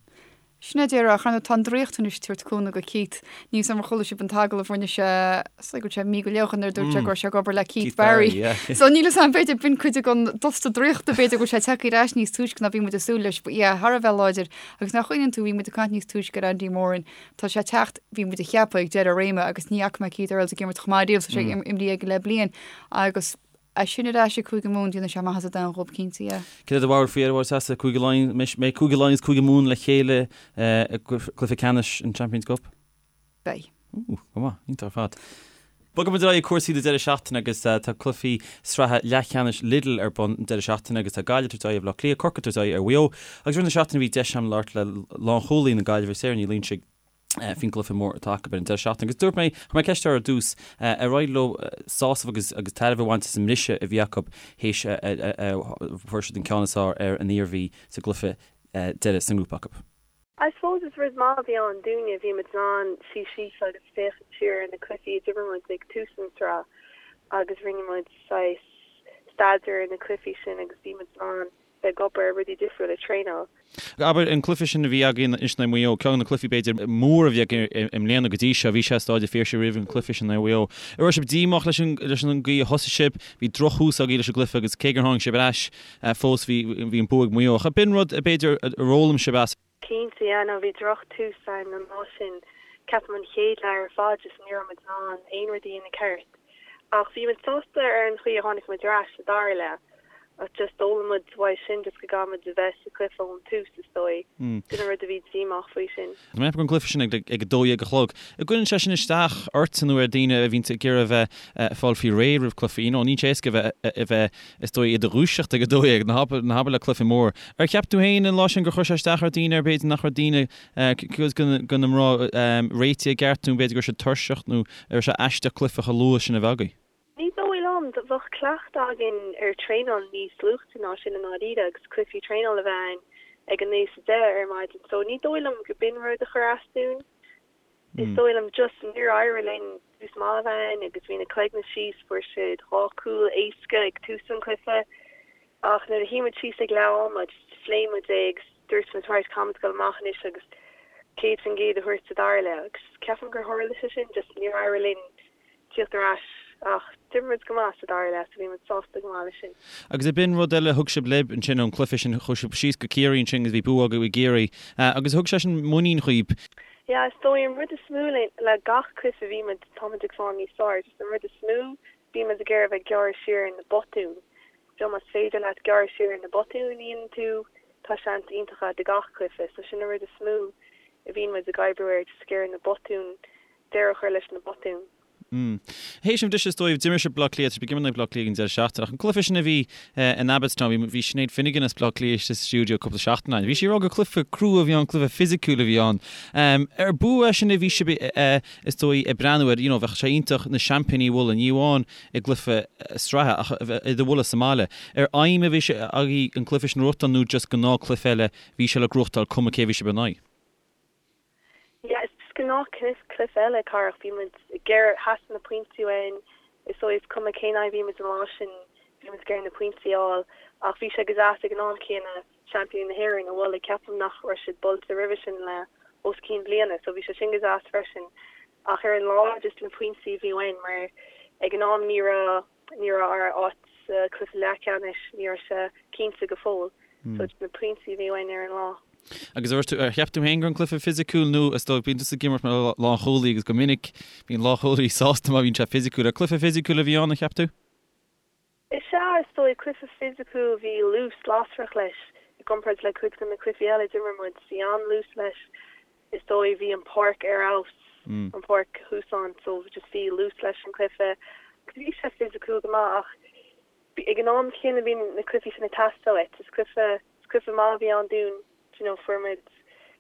Sin é díreach, ar ndóigh tá an draíocht anois ag tabhairt cúnamh go Keith. Níl 'fhios a'm ar chuala sibh an t-agallamh a rinne sé, is dóigh go bhfuil sé mí go leith ó shin nuair a dúirt sé go raibh sé ag obair le Keith Barry. So níl 'fhios a'm, b'fhéidir b'in cuid den dusta draíochta, b'fhéidir go bhfuil sé tagtha ar ais níos túisce ná bhí muid ag súil leis. But yeah, thar a bheith láidir. Agus nach gcuimhníonn tú, bhí muid ag caint níos túisce ar Andy Moran, tá sé ag teacht, bhí muid ag ceapadh ag deireadh a réime agus ní fhaca mé Keith Earls ag imirt chomh maith riamh, so sé imrithe aige le bliain agus É sin ar ais ag Cúige Mumhan, déanfaidh sé maitheas an domhain dhób cinnte, yeah. Cad é do bharúil faoi ar a bhfuil Cúige Laighean, mbeidh Cúige Laighean is Cúige Mumhan le chéile i gcluiche ceannais an Champions Cup? Beidh. Ooh, go maith, iontach ar fad. Bogfaidh muid ar aghaidh ag cúrsaí na deireadh seachtaine agus tá cluichí sraithe leathcheannais Lidl ar bun an deireadh seachtaine agus tá Gaillimh ag tabhairt aghaidh ar Bhaile Átha Cliath, Corcaigh ag tabhairt aghaidh ar Mhaigh Eo agus i rith na seachtaine bhí deis agam labhairt le lánchúlaí na Gaillimhe, Sarah Ní Loingsigh, faoin gcluiche mór atá acu ar an deireadh seachtaine. Agus dúirt mé, chuir mé ceist uirthi ar dtús, ar éirigh leo sásamh agus agus tairbhe a bhaint as an mbriseadh a bhí acu théis a fuair siad an ceann is fearr ar an Iarmhí sa gcluiche deiridh sa ngrúpa acu. I suppose is rud maith a bhí ann dúinne, bhí muid in ann suí síos agus féachaint siar ar na cluichí a d'imir muid ag tús an tsraith agus rinne muid saghas staidéar ar na cluichí sin agus bhí muid in ann bheith ag obair ar rudaí difriúla, traenáil. Abair, an cluiche sin a bhí againn anois in aghaidh Mhaigh Eo, ceann de na cluichí b'fhéidir mór a bhí againn i mbliana go dtí seo, bhí sé i Staid an Phiarsaigh roimh an cluiche sin in aghaidh Mhaigh Eo. An raibh sibh díomách leis an leis an gcaoi a thosaigh sibh? Bhí drochthús agaibh leis an gcluiche agus cé gur tháinig sibh ar ais fós bhí bhí an bua ag Maigh Eo. Ach b'in rud b'fhéidir ar fhoghlaim sibh as. Cinnte, yeah, no, bhí droch-tús againn an lá sin. Ceapaim an chéad leath ar fad just ní raibh muid in ann aon rud a dhéanamh ceart. Ach bhí muid sásta ar an chaoi a tháinig muid ar ais sa dara leath. Ach just d'fhoghlaim muid uaidh sin just go gcaithfidh muid a bheith sa chluiche ón tús is dóigh. Sin an rud a bhí díomách faoi sin. Tá mé ag ceapadh an cluiche sin ag 12 a chlog. An gcuireann sé sin isteach ort nó ar daoine a bhíonns ag iarraidh a bheith ag fáil faoi réir roimh cluichí? You know, níl sé éasca a bheith a bheith is dóigh i do dhúiseacht ag 12, ná habair ná habair le cluiche mór. Ar cheap tú féin an lá sin gur chuir sé isteach ar daoine ar b'fhéidir nach raibh daoine cuid de na mná réitithe i gceart nó b'fhéidir go raibh siad tuirseach nó an raibh sé aisteach cluiche chomh luath sin a bheith agaibh? Ní dóigh liom. Bheadh cleachtadh againn ar traenáil níos luaite ná sin i ndáiríre agus cluichí traenála a bheith ann ag a 9 is a 10 ar maidin so ní dóigh liom go b'in rud a chuir as dúinn. Is dóigh liom just níor éirigh linn tús maith a bheith ann agus bhí na cloigne síos, fuair siad dhá chúl éasca ag tús an chluiche. Ach nuair a shuigh muid síos ag leath ama, just phléigh muid é agus dúirt muid right, caithfimid dul amach anois agus 100% a thabhairt sa dara leath agus ceapaim gur tharla sé sin, just níor éirigh linn tíocht ar ais ach d'imir muid go maith sa dara leath so bhí muid sásta go maith leis sin. Agus ab in rud eile a thug sibh libh ansin ón cluiche sin, chuaigh sibh síos go Ciarraí ansin agus bhí bua agaibh i gCiarraí agus thug sé sin muinín dhaoib. Yeah, is dóigh an rud is mó le gach cluiche a bhí muid, tá muid ag fáil níos fearr, just an rud is mó bíonn muid ag iarraidh a bheith ag gearradh siar ar na botúin. So más féidir leat gearradh siar ar na botúin a dhéanann tú, tá seans iontach agat i gach cluiche. So sin an rud is mó a bhíonn muid ag oibriú air, just ag iarraidh na botúin, deireadh a chur leis na botúin. Mm. Théis an bhriseadh is dóigh, d'imir sibh Bleá Cliath, tá sibh ag imirt in aghaidh Bleá Cliath an deireadh seachtaine, ach an cluiche sin a bhí in Abbotstown, bhí, bhí Sinéad Finnegan as Bleá Cliath istigh sa stiúideo cúpla seachtain ó shin. Bhí sí ag rá gur cluiche crua a bhí ann, cluiche fisiciúil a bhí ann. Ar bua é sin a bhí sibh is dóigh ag breathnú air, you know, bheadh sé iontach na seaimpíní a bhualadh, ní amháin i gcluiche sraithe ach iad a bhualadh sa mbaile. Ar aidhm a bhí sé agaibh an cluiche sin a ghnóthachtáil nó just gnáthchluiche eile bhí sé le gnóthachtáil cuma cé a bhí sibh in aghaidh? Yeah, is just gnáthchluiche eile, Carach. Bhí muid ag iarraidh, theastaigh na pointí uainn. Is dóigh is cuma cén aghaidh a bhí muid an lá sin, bhí muid ag iarraidh na pointí a fháil. Ach bhí sé go deas ag an am céanna seaimpíní na hÉireann a bhualadh. Ceapaim nach raibh siad buailte roimhe sin le os cionn bliana, so bhí sé sin go deas freisin. Ach ar an lá, just na pointí a bhí uainn mar ag an am ní raibh, ní raibh ár áit sa chluiche leathcheannais, ní raibh sé cinnte go fóill. So just na pointí a bhí uainn ar an lá. Agus ar, ar cheap tú féin go raibh an cluiche fisiciúil nó is dóigh bíonn tusa ag imirt mar lánchúlaí agus go minic bíonn lánchúlaí sásta má bhíonn sé fisiciúil. Ar cluiche fisiciúil a bhí ann, an cheap tú? Is ea, is dóigh, cluiche fisiciúil, bhí luas lasrach leis i gcomparáid le cuid de na cluichí eile a d'imir muid. Bhí an-luas leis, is dóigh, bhí an páirc ar fheabhas, an páirc thuas ann, so just bhí luas leis an cluiche. Bhí sé fisiciúil go maith ach ag an am céanna bíonn na cluichí sin ag teastáil uait. Is cluiche, is cluiche maith a bhí ann dúinn, do you know, fuair muid,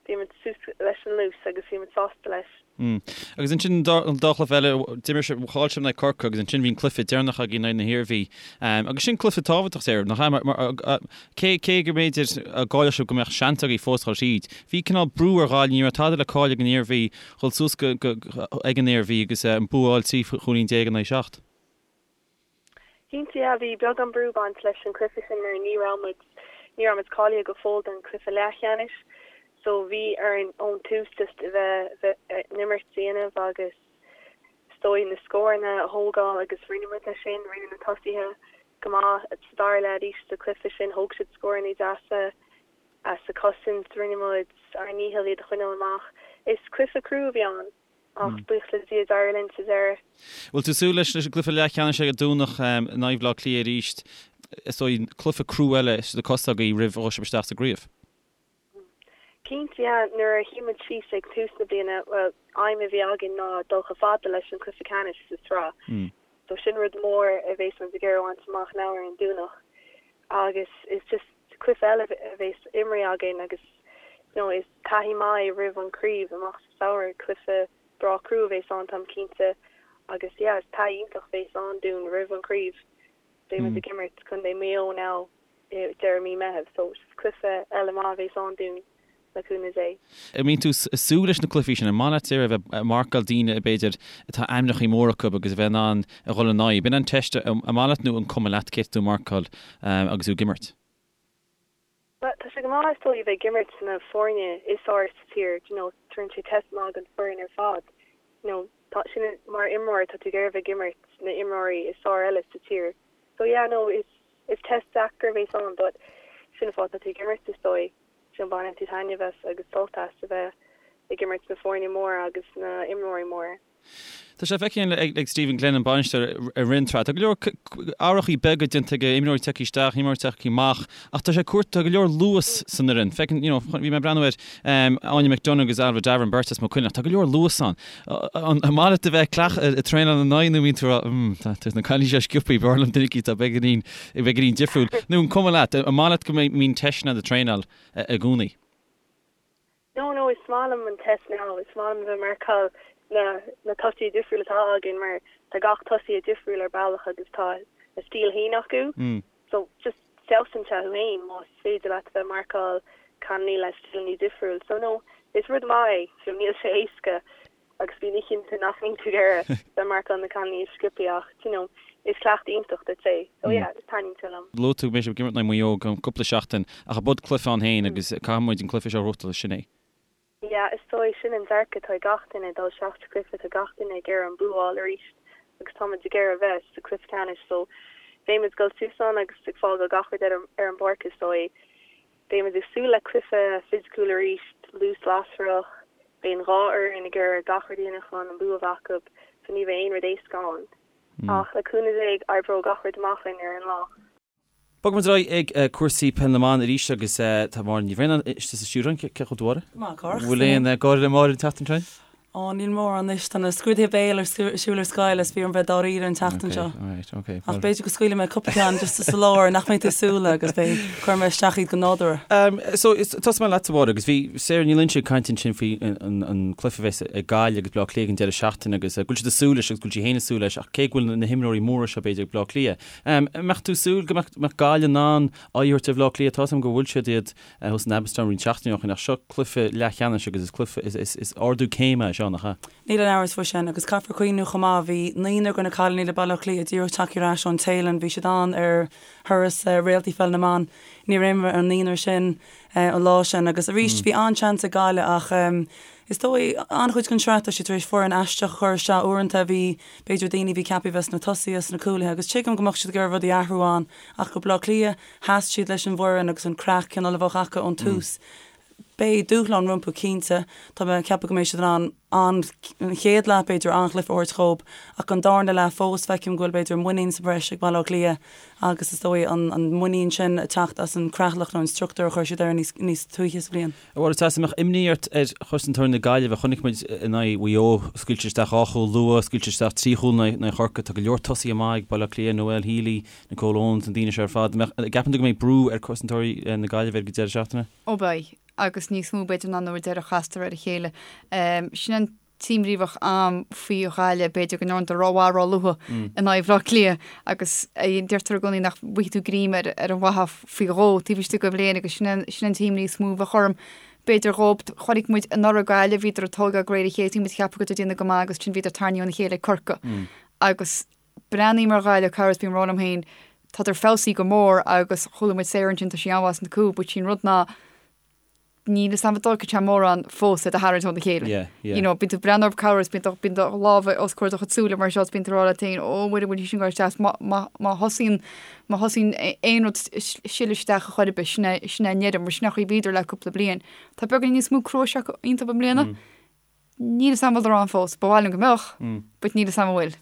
bhí muid suas leis an luas agus bhí muid sásta leis. Mm. Agus ansin an dá, an dá chluiche eile, d'imir sibh, chaill sibh in aghaidh Corcaigh agus ansin bhí an cluiche deireanach agaibh in aghaidh na hIarmhí. Agus sin cluiche tábhachtach Sarah, nach ea? Mar, mar, cé, cé go mb'fhéidir go gcaillfeadh sibh go mbeadh seans agaibh fós dhul tríd, bhí cineál brú ar Ghaillimh, ní raibh tada le cailleadh ag an Iarmhí, dhul suas go, go, ag an Iarmhí agus an bua a fháil 13 chúilín in aghaidh 7. Cinnte, yeah, bhí beagán brú ag baint leis an cluiche sin mar ní raibh muid, ní raibh muid cáilithe go fóill don cluiche leathcheannais so bhí orainn ón tús just a bheith, bheith an imirt a dhéanamh agus is dóigh na scóranna a thógáil agus rinne muid é sin, rinne na tosaithe go maith sa dara leath arís sa cluiche sin, thóg siad scóranna deasa sa chosaint, rinne muid ár ndícheall iad a choinneáil amach. Is cluiche crua a bhí ann. Ach buíochas le Dia d'éirigh linn sa deireadh. Bhfuil tú ag súil leis an gcluiche leathcheannais ag an Domhnach in aghaidh Bhaile Átha Cliath arís? Is dóigh cluiche crua eile sna cosa agaibh roimh a dhul sibh isteach sa gcraobh. Cinnte, yeah. Nuair a shuigh muid síos ag tús na bliana, bhuel, aidhm a bhí againn ná dul chomh fada leis an cluiche ceannais sa tsraith. So sin rud mór a bhéas muid ag iarraidh a bhaint amach now ar an Domhnach. Agus is just cluiche eile a bhéas imrithe againn agus you know is taithí maith é roimh an craobh amach sa samhradh, cluiche breá crua a bhéas ann táim cinnte agus yeah is taithí iontach a bhéas ann dúinn roimh an craobh. Beidh muid ag imirt Contae Maigh Eo now i deireadh mí Meitheamh so is cluiche eile maith a bhéas ann dúinn le cúnamh Dé. An mbíonn tú ag súil leis na cluichí sin? An maith leat a bheith ag marcáil daoine b'fhéidir atá ainmneacha móra acu agus a bheith in ann a dhul in aghaidh? B'in an teist, an maith leat nó an cuma leat cé tá tú ag marcáil agus tú ag imirt? Bhuel, tá sé go maith is dóigh a bheith ag imirt na foirne is fearr sa tír, do you know, tugann sé test maith don foireann ar fad, you know, tá sin mar imreoir tá tú ag iarraidh a bheith ag imirt na imreoirí is fearr eile sa tír. So yeah, no, is is test deacair a bhéas ann but sin an fáth tá tú ag imirt is dóigh. Sin baineann tú taitneamh as agus sult as a bheith ag imirt na foirne móra agus na imreoirí móra. Tá sé feicthe ag Stephen Glenn, an bainisteoir, i rith an tsraith. Tá go leor athrachaí beaga déanta aige, imreoirí tagtha isteach, imreoirí tagtha amach, ach tá sé ag cur, tá go leor luas san fhoireann. Feiceann, you know, bhí mé ag breathnú ar Áine McDonagh agus Ailbhe Davoren, beirt as Maigh Cuilinn, ach tá go leor luas ann. An maith leat a bheith ag traenáil ina n-aghaidh nó bíonn tú ag rá, mm, tá na cailíní seo sciobtha, b'fhearr liom duine eicínt atá beagáinín, beagáinín difriúil. Nó an cuma leat, an maith leat go mbíonn teisteanna ag traenáil i gcónaí? No, no, is maith liom an test now, is maith liom a bheith ag marcáil na na tosaithe difriúla atá againn mar tá gach tosaí difriúil ar bealach agus tá a stíl féin acu. So just feabhsaíonn sé thú féin más féidir leat a bheith ag marcáil cailíní le stíleanna difriúil. So no, is rud maith é, so níl sé éasca agus bíonn oícheanta nach mbíonn tú ag iarraidh bheith ag marcáil na cailíní is sciobtha ach, you know, Is cleachtadh iontach duit é. So yeah, taitníonn sé liom. Luaigh tú go mbeidh sibh ag imirt in aghaidh Mhaigh Eo i gceann cúpla seachtain ach ab ea cluiche ann féin agus caithfidh muid an cluiche seo a ghnóthachtáil, sin é. Yeah, is dóigh, sin an dearcadh atá ag gach duine, dul isteach sa chluiche, tá gach duine ag iarraidh an bua a fháil arís agus tá muid ag iarraidh a bheith sa chluiche ceannais so beidh muid ag dul suas ann agus ag fágáil gach rud ar an bpáirc is dóigh. Beidh muid ag súil le cluiche fisiciúil arís, luas lasrach, beidh an dhá fhoireann ag iarraidh gach rud a dhéanamh chun an bua a bheith acu so ní bheidh aon rud éasca ann. Ach le cúnamh Dé oibreoidh gach rud amach linn ar an lá. Bogfaidh muid ar aghaidh ag cúrsaí peil na mban arís agus tá Máire Ní Bhraonáin istigh sa stiúideo. Cén chaoi a bhfuil tú, a Mháire? Go maith, a Chárthach. Bhfuil aon gáire le Máire an tseachtain seo? Ó, níl mórán anois. Tá na scrúduithe béil ar siúl ar scoil is bhí orm bheith dáiríre an tseachtain seo. Ach b'fhéidir go scaoilfidh mé cúpla ceann just sa lár nach mbeidh tú ag súil agus beidh, cuirfidh mé isteach iad go nádúrtha. So, tosóidh mé leat, a Mháire, agus bhí Sarah Ní Loingsigh ag caint ansin faoi an cluiche a bheas ag Gaillimh agus Baile Átha Cliath ag an deireadh seachtaine agus go bhfuil siad ag súil leis agus go bhfuil sí féin ag súil leis ach cé go bhfuil na himreoirí móra seo b'fhéidir ag Baile Átha Cliath, An mbeadh tú ag súil go mbeadh Gaillimh in ann aghaidh a thabhairt ar Bhaile Átha Cliath? Tá a fhios agam gur bhuail siad iad thuas in Abbotstown roinnt seachtainí ó shin ach seo cluiche leathcheannais agus is cluiche, is ardú céime é seo, nach ea? Níl aon amhras faoi sin agus caithfear cuimhniú chomh maith, bhí naonúr de na cailíní le Baile Átha Cliath díreach tagtha ar ais ón Téalainn, bhí siad ann ar thuras Réaltaí Pheil na mBan. Níor imir an naonúr sin an lá sin agus arís bhí an-seans ag Gaillimh ach is dóigh an-chuid den sraith tá siad tar éis foireann aisteach a chur isteach uaireanta bhí b'fhéidir daoine a bhí ceaptha a bheith sna tosaithe, sna cúlaithe agus tuigim go mbeadh siad ag iarraidh rudaí a athrú ann ach go Baile Átha Cliath sheas siad leis an bhfoireann agus an creat cineál a bheadh acu ón tús. Beidh dúshlán rompu cinnte. Tá mé ag ceapadh go mbeidh siad in ann an chéad leath b'fhéidir an-chluiche a thabhairt dhóibh ach an darna leath fós feicim go bhfuil b'fhéidir muinín sa bhreis ag Baile Átha Cliath agus is dóigh an muinín sin ag teacht as an creatlach nó an struchtúr a chuir siad air níos níos túisce sa bhliain. A Mháire, an mbeadh imní ort ar chosantóirí na Gaillimhe? Chonaic muid in aghaidh Mhaigh Eo, scaoilte isteach dhá chúl luath, scaoilte isteach trí chúl in aghaidh Chorcaí. Tá go leor tosaithe maith ag Baile Átha Cliath, Noelle Healy, Nicole Owens, na daoine seo ar fad. An mbeadh, an gceapann tú go mbeidh brú ar chosantóirí na Gaillimhe ar an deireadh seachtaine? Ó beidh, agus níos mó b'fhéidir ná nuair a deireadh chastar ar a chéile. Sin an t-imní a bheadh a'm faoi Ghaillimh, b'fhéidir go ndearnadar rómhaith róluath in aghaidh Bhaile Átha Cliath agus deirtear i gcónaí nach bhfaighidh tú greim ar ar an bhfathach faoi dhó taobh istigh de bhliain agus sin an sin an t-imní is mó a bheadh orm. B'fhéidir dhób, chonaic muid anuraidh Gaillimh, bhíodar ag tógáil de réir a chéile, bhí muid ag ceapadh go raibh déanamh go maith agus ansin bhíodar tarraingthe óna chéile ag Corcaigh agus breathnaím ar Ghaillimh corruair is bím ag rá liom féin, tádar feabhsaithe go mór agus chuala muid Sarah ansin, tá sí an-mhaith sna cúil, but sin rud ná níl fhios a'm an dtógfaidh sé mórán fós iad a tharraingt óna chéile. Yeah, yeah. You know, bíonn tú ag breathnú orthu corruair is bíonn do, bíonn do lámha os comhair do chuid súile mar seo is bíonn tú ag rá leat féin, ó Mhuire, bhfuil sí sin ag goil isteach, má, má, má thosaíonn, má thosaíonn aon rud sileadh isteach a chor ar bith, sin é, sin é an deireadh, mar sin é an chaoi a bhíodar le cúpla bliain. Tá beagáinín níos mó cruais acu iontu i mbliana. Níl fhios a'm an bhfuil ann fós. Ba mhaith liom go mbeadh, but níl fhios a'm an bhfuil.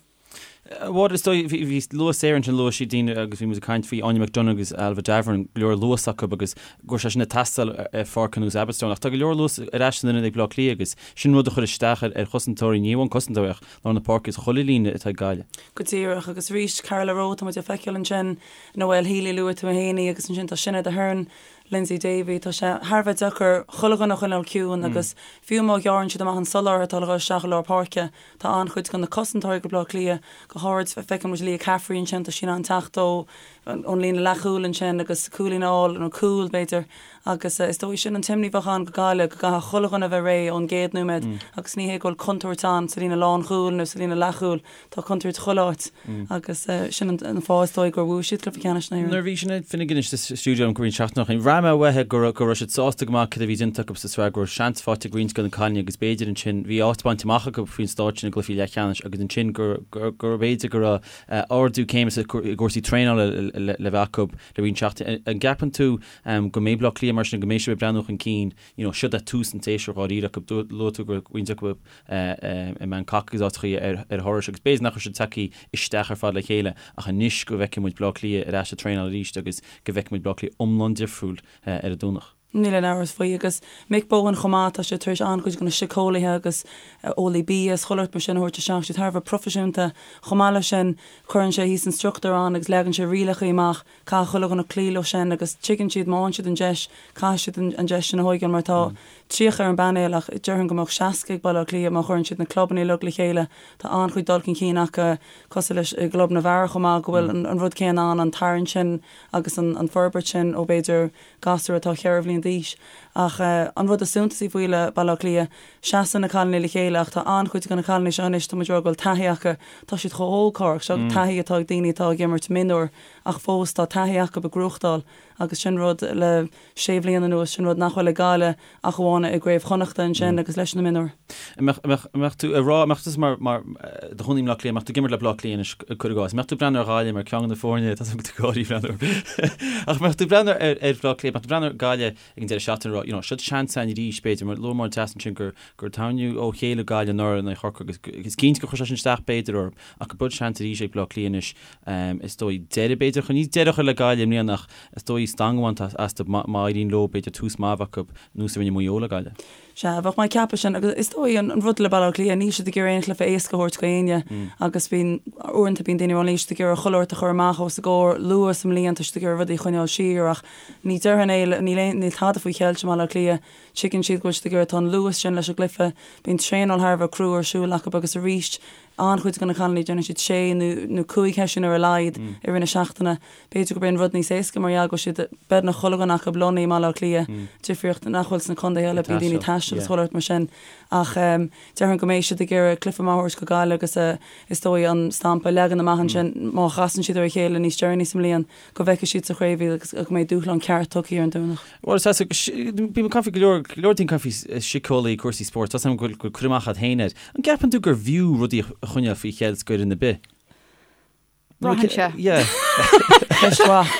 Bhuel, is dóigh, bhí, luaigh Sarah ansin, luaigh sí daoine agus bhí muid ag caint faoi Áine McDonagh agus Ailbhe Davoren, go leor luas acu agus go raibh sé sin ag teastáil ar pháirc ar nós Abbotstown. Ach tá go leor luas ar ais san ionad ag Baile Átha Cliath agus sin rud a chuir isteach ar chosantóirí, ní amháin cosantóirí ach lár na páirce is chuile líne atá ag Gaillimh. Go díreach, agus arís Carla Rowe, tá muid ag feiceáil ansin, Noelle Healy, luaigh tú féin í agus ansin tá Sinéad Aherne, Lyndsey Davey, Tá sé thar a bheith deacair chuile dhuine a choinneáil ciúin agus fiú má ghearrann siad amach an soláthar atá le dhul isteach i lár páirce, tá an-chuid de na cosantóirí go Baile Átha Cliath, go háirid, feiceann muid Leah Caffrey ansin, tá sí in ann teacht ó ón líne leathchúil ansin agus cúilín a fháil, nó cúl, b'fhéidir, agus is dóigh sin an t-imní a bheadh ann go Gaillimh, go gcaithfidh chuile dhuine a bheith réidh ón gcéad nóiméad agus ní hé go bhfuil contúirt ann sa líne lánchúil nó sa líne leathchúil. Tá contúirt chuile áit agus sin an fáth is dóigh gur bhuaigh siad cluiche ceannais na hÉireann. Nuair a bhí Sinéad Finnegan istigh sa stiúideo liom roinnt seachtainí ó shin, bhraith mé uaithi go raibh go raibh siad sásta go maith cad a bhí déanta acu sa sraith, go raibh seans faighte ag roinnt de na cailíní agus b'fhéidir ansin, bhí áit bainte amach acu faoin stáid sin i gcluichí leathcheannais agus ansin gur gur gur b'fhéidir go raibh ardú céime sa i gcúrsaí traenála le le bheith acu le roinnt seachtainí. An gceapann tú go mbeidh Baile Átha Cliath mar sin, go mbeidh sibh ag breathnú chun cinn, you know, siod é tús an tséasúir dháiríre acu, luaigh tú go raibh roinnt acu i mBangkok agus áiteachaí ar thurais agus b'fhéidir nach raibh siad tagtha isteach ar fad le chéile ach anois go bhfeicfidh muid Baile Átha Cliath ar ais ag traenáil arís agus go bhfeicfidh muid Baile Átha Cliath iomlán difriúil ar an Domhnach. Níl aon amhras faoi. Agus Mick Bohan chomh maith, tá sé tar éis an-chuid de na síceolaithe agus eolaí bia is chuile shórt mar sin a thabhairt isteach, siad thar a bheith proifisiúnta. Chomh maith leis sin, cuireann sé thíos an struchtúr ann agus leagann sé rialacha amach Caithfidh chuile dhuine cloí leo sin agus tuigeann siad má fhaigheann siad an deis, caithfidh siad an deis sin a thóigeáil mar tá 30 ar an bpainéal ach déarfainn go mbeadh 60 ag Baile Átha Cliath má chuireann siad na clubanna uilig le chéile. Tá an-chuid dul chun cinn acu cosúil leis i gclub na bhfear chomh maith go bhfuil an rud céanna ann, an tarraingt sin agus an forbairt sin ó b'fhéidir gasúr atá cheithre bhliain. bliain d'aois. Ach an rud is suntasaí faoi le Baile Átha Cliath, seasann na cailíní le chéile ach tá an-chuid de na cailíní seo anois, tá muid ag rá go bhfuil taithí acu, tá siad chomh hóg, Cárthach, seo taithí atá ag daoine atá ag imirt mionúir ach fós tá taithí acu ag gnóthachtáil agus sin rud le sé bhliain anuas, sin rud nach bhfuil ag Gaillimh ach amháin i gCraobh Chonnachta ansin agus leis na mionúir. An mbeadh tú ag rá, an mbeadh tusa mar, mar, i do chónaí i mBleá Cliath, an mbeadh tú ag imirt le Bleá Cliath anois, cuir i gcás, an mbeadh tú ag breathnú ar Ghaillimh mar ceann de na foirne, tá tú ag gáirí breathnú ach an mbeadh tú ag breathnú ar, ar Bhleá Cliath, an mbeadh tú ag breathnú ar Gaillimh ag an deireadh seachtaine ag rá, you know, seo seans againn arís b'fhéidir, mar luaigh Máire Treasa ansin gur, gur tarraingíodh ó chéile Gaillimh anuraidh in aghaidh Chorcaí agus is cinnte gur chuir sé sin isteach b'fhéidir orthu ach go bhfuil seans arís ag Bleá Cliath anois Is dóigh deireadh, b'fhéidir, chun ní deireadh a chur le Gaillimh i mbliana ach is dóigh stangadh a bhaint astu má éiríonn leo, b'fhéidir, tús maith a bheith acu, nós a rinne Maigh Eo le Gaillimh. Sea, bheadh mé ag ceapadh sin agus is dóigh an rud le Baile Átha Cliath, níl siad ag iarraidh aon chluiche éasca a thabhairt go éinne agus bíonn, uaireanta bíonn daoine ag rá níl siad ag iarraidh chuile shórt a chur amach os a gcomhair luath sa mbliain, tá siad ag iarraidh rudaí a choinneáil siar ach ní déarfainn é, níl aon, níl tada faoi cheilt i mBaile Átha Cliath, tuigeann siad go bhfuil siad ag iarraidh, tá an luas sin leis an gcluiche, bíonn traenáil thar a bheith crua ar siúl acu agus arís An-chuid de na cailíní, déanann siad sé nó cúig sheisiún ar a laghad i rith na seachtaine. B'fhéidir gurb é an rud níos éasca mar gheall go bhfuil siad, beagnach chuile dhuine acu lonnaithe i mBaile Átha Cliath, difríocht nach bhfuil sna contaetha eile, bíonn daoine ag taisteal is chuile shórt mar sin. Ach déarfainn go mbeidh siad ag iarraidh cluiche maith a thabhairt go Gaillimh agus is dóigh an stampa a leagan amach ansin má chasann siad ar a chéile níos deireanaí sa mbliain go bhfeicfidh siad sa chraobh iad agus go mbeidh dúshlán ceart tugtha ar an Domhnach. Bhuel, is ea, bím ag caint faoi go leor, go leor daoine ag caint faoi síceolaí, cúrsaí spóirt, tá 's agam go bhfuil cur amach agat féin air. An gceapann tú gur bhfiú rudaí a choinneáil faoi cheilt go fhoireann ar bith? Braitheann sé. Yeah. Ceist mhaith.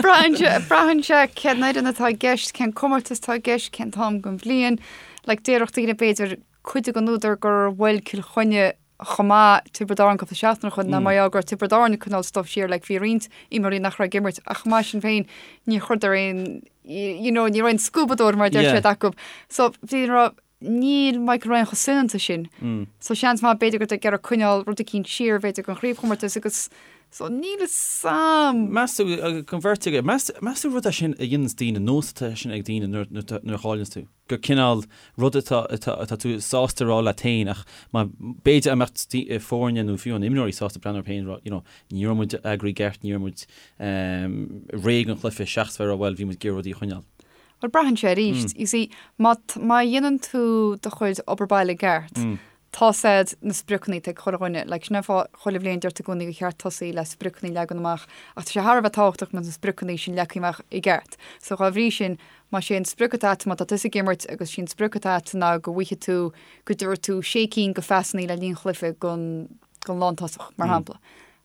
Braitheann sé, braitheann sé cén fhoireann atá i gceist, cén comórtas atá i gceist, cén t-am den bhliain. Like, déarfadh daoine b'fhéidir cuid den údar gur bhuail Cill Chainnigh chomh maith Tiobraid Árann cúpla seachtain ó shoin ná mar gheall go raibh Tiobraid Árann ag coinneáil stuif siar like bhí roinnt imreoirí nach raibh ag imirt ach chomh maith sin féin ní chuireadar aon you know ní raibh aon scuabadóir mar a deir siad acu so bhí raibh níl Michael Ryan chomh soineanta sin so seans maith b'fhéidir go ag iarraidh coinneáil rud eicínt siar b'fhéidir don chraobhchomórtas agus so níl a fhios a'm. Meas tú don bheirt agaibh meas meas tú rud é sin a dhéananns daoine nós atá sin ag daoine nuair nuair a chailleanns tú? gur cineál rud atá atá tú sásta a rá leat féin ach má b'fhéidir a mbeadh foirne nó fiú an imreoirí sásta breathnú orthu féin a rá you know ní raibh muid eagraithe i gceart, ní raibh muid réidh don chluiche seachas bheith a rá bhuel bhí muid ag iarraidh rudaí a choinneáil. Bhuel braitheann sé arís, you see má má dhéanann tú do chuid obair baile i gceart, tá 's a'd na spriocanna atá ag chuile dhuine, like sin an fáth chuile bhliain deirtear i gcónaí gur cheart tosaí le spriocanna a leagan amach ach tá sé thar a bheith tábhachtach go mbeadh na spriocanna sin leagtha amach i gceart. So dhá bhrí sin, más é an sprioc atá a'd, má tá tusa ag imirt agus sí an sprioc atá a'd ná go bhfaighidh tú, go dtabharfaidh tú sé cinn de phasanna le linn chluiche don, don lántosach, mar shampla.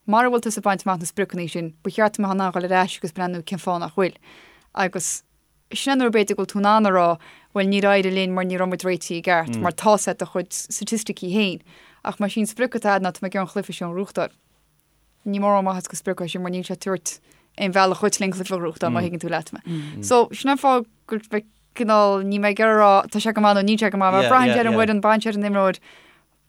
Mara bhfuil tusa ag baint amach na spriocanna sin, ba cheart go mbeifeá in ann dhul ar ais agus breathnú cén fáth nach bhfuil. Agus. Sin é nuair b'fhéidir go bhfuil tú in ann a rá, bhuel níor éirigh linn mar ní raibh muid réitithe i gceart, mar tá 's a'd do chuid staitisticí féin. Ach más í an sprioc atá a'd ná tá mé ag iarraidh an chluiche seo a ghnóthachtáil. Ní mórán maitheas go sprioc é sin mar níl sé ag tabhairt aon bhealach dhuit le an cluiche a ghnóthachtáil má thuigeann tú leat mé. So sin an fáth go bhfuil cineál níl mé ag iarraidh a rá tá sé go maith nó níl sé go maith mar braitheann sé ar an bhfoireann, braitheann sé ar an imreoir,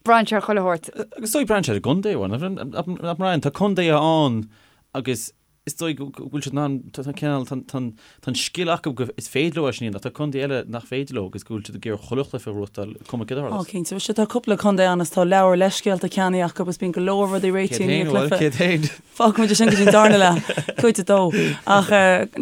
braitheann sé ar chuile shórt. Agus is dóigh braitheann sé ar an gcontae, nach mbraitheann? Tá contaetha ann agus Is dóigh go bhfuil siad in ann, tá cineál, tá an scil acu go is féidir leo é sin a dhéanamh, ach tá contae eile nach féidir leo agus go bhfuil siad ag iarraidh chuile chluiche a ghnóthachtáil, cuma céard a tharlós. Ó, cinnte. Sea, tá cúpla contae ann is tá leabhar leithscéalta ceannaithe acu agus bíonn go leor rudaí réitithe i ndiaidh cluiche. Céard féin? Fágfaidh muid é sin go dtí an darna leath, cuid a dó. Ach,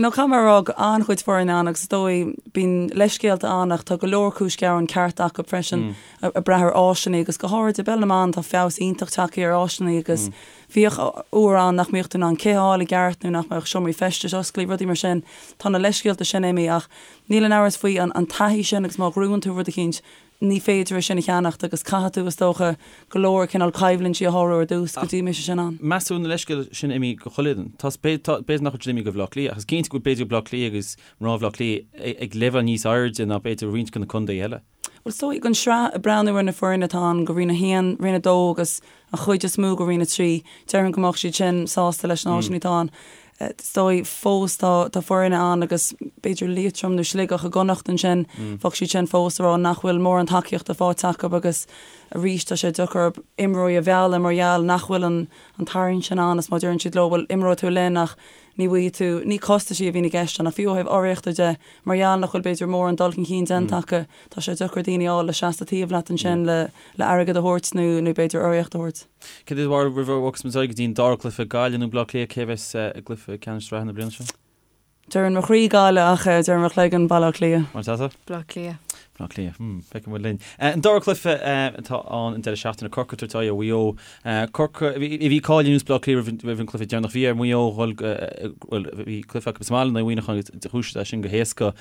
no, caithfidh mé a rá go an-chuid foirne ann agus is dóigh, bíonn leithscéalta ann ach tá go leor cúis ghearáin ceart acu freisin, ag brath ar áiseanna agus go háirid i bpeil na mban tá feabhas iontach tagtha ar áiseanna agus Bhíodh uair ann nach mbíodh tú in ann cith a fháil i gceart nó nach mbeadh seomraí feistis oscailte, rudaí mar sin. Tá na leithscéalta sin imithe ach níl aon amhras faoi an taithí sin agus má ghnóthaíonn tú rud eicínt, ní féidir é sin a cheannacht agus caithfidh tú, is dócha, go leor cineál coimhlintí a shárú ar dtús go dtí go mbeidh sé sin ann. Meas tú na leithscéalta sin imithe go chuile fhoireann? Tá, b'fhéidir nach bhfuil siad imithe go Bhaile Átha Cliath ach is cinnte go bhfuil b'fhéidir Baile Átha Cliath agus mná Bhaile Átha Cliath ag leibhéal níos airde ná b'fhéidir roinnt de na contaetha eile. Bhuel, is dóigh, don sraith, ag breathnú ar na foirne atá ann go Roinn 1, Roinn 2 agus an chuid is mó go Roinn 3, déarfainn go mbeadh siad sin sásta leis na háiseanna atá ann. Is dóigh, fós tá tá foirne ann agus b'fhéidir Liatroim nó Sligeach i gConnacht ansin, bheadh siad sin fós ag rá nach bhfuil mórán tacaíochta faighte acu agus arís tá sé deacair imreoirí a mhealladh mar gheall nach bhfuil an an tarraingt sin ann is má deireann siad leo bhuel imreoidh tú linn ach ní bhfaighidh tú, ní costaisí a bhíonn i gceist ann ach fiú ó thaobh urraíochta de, mar gheall nach bhfuil b'fhéidir mórán dul chun cinn déanta acu, tá sé deacair daoine a fháil le seasamh taobh leat ansin le le airgead a thabhairt nó nó b'fhéidir urraíocht a thabhairt. Céard é do bharúil roimh a bhogfas muid ar aghaidh go dtí an dara cluiche, Gaillimh nó Baile Átha Cliath, cé a bheas i gcluiche ceannais sraithe na bliana seo? Deireann mo chroí Gaillimh ach deireann mo chloigeann Baile Átha Cliath. Murtasa? Baile Átha Cliath. Baile Átha Cliath. Hmm, feicfidh muid linn. An dara cluiche atá ann an deireadh seachtaine, Corcaigh ag tabhairt aghaidh ar Mhaigh Eo. Corcaigh, bhí cáil ar nós Baile Átha Cliath roimh an cluiche deireanach. Bhí ar Mhaigh Eo dhul, bhuel, bhí cluiche acu sa mbaile in aghaidh Mhuineacháin agus chuaigh siad as sin go héasca.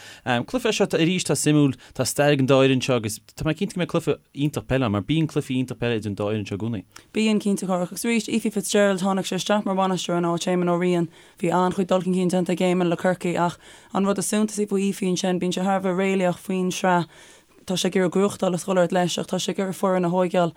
Cluiche é seo arís atá suimiúil, tá stair ag an dá fhoireann seo agus tá mé cinnte go mbeidh cluiche iontach peile ann mar bíonn cluichí iontach peile idir an dá fhoireann seo i gcónaí. Bíonn, cinnte, Chárthach. Agus arís, Ephie Fitzgerald, tháinig sé isteach mar bhainisteoir in áit Éamon Ó Riain. Bhí an-chuid dul chun cinn déanta ag Éamon le Corcaigh ach an rud is suntasaí faoi Ephie ansin, bíonn sé thar a bheith réalaíoch faoin sraith. Tá sé ag iarraidh gnóthachtáil is dhul ort leis ach tá sé ag iarraidh foireann a thóigeáil.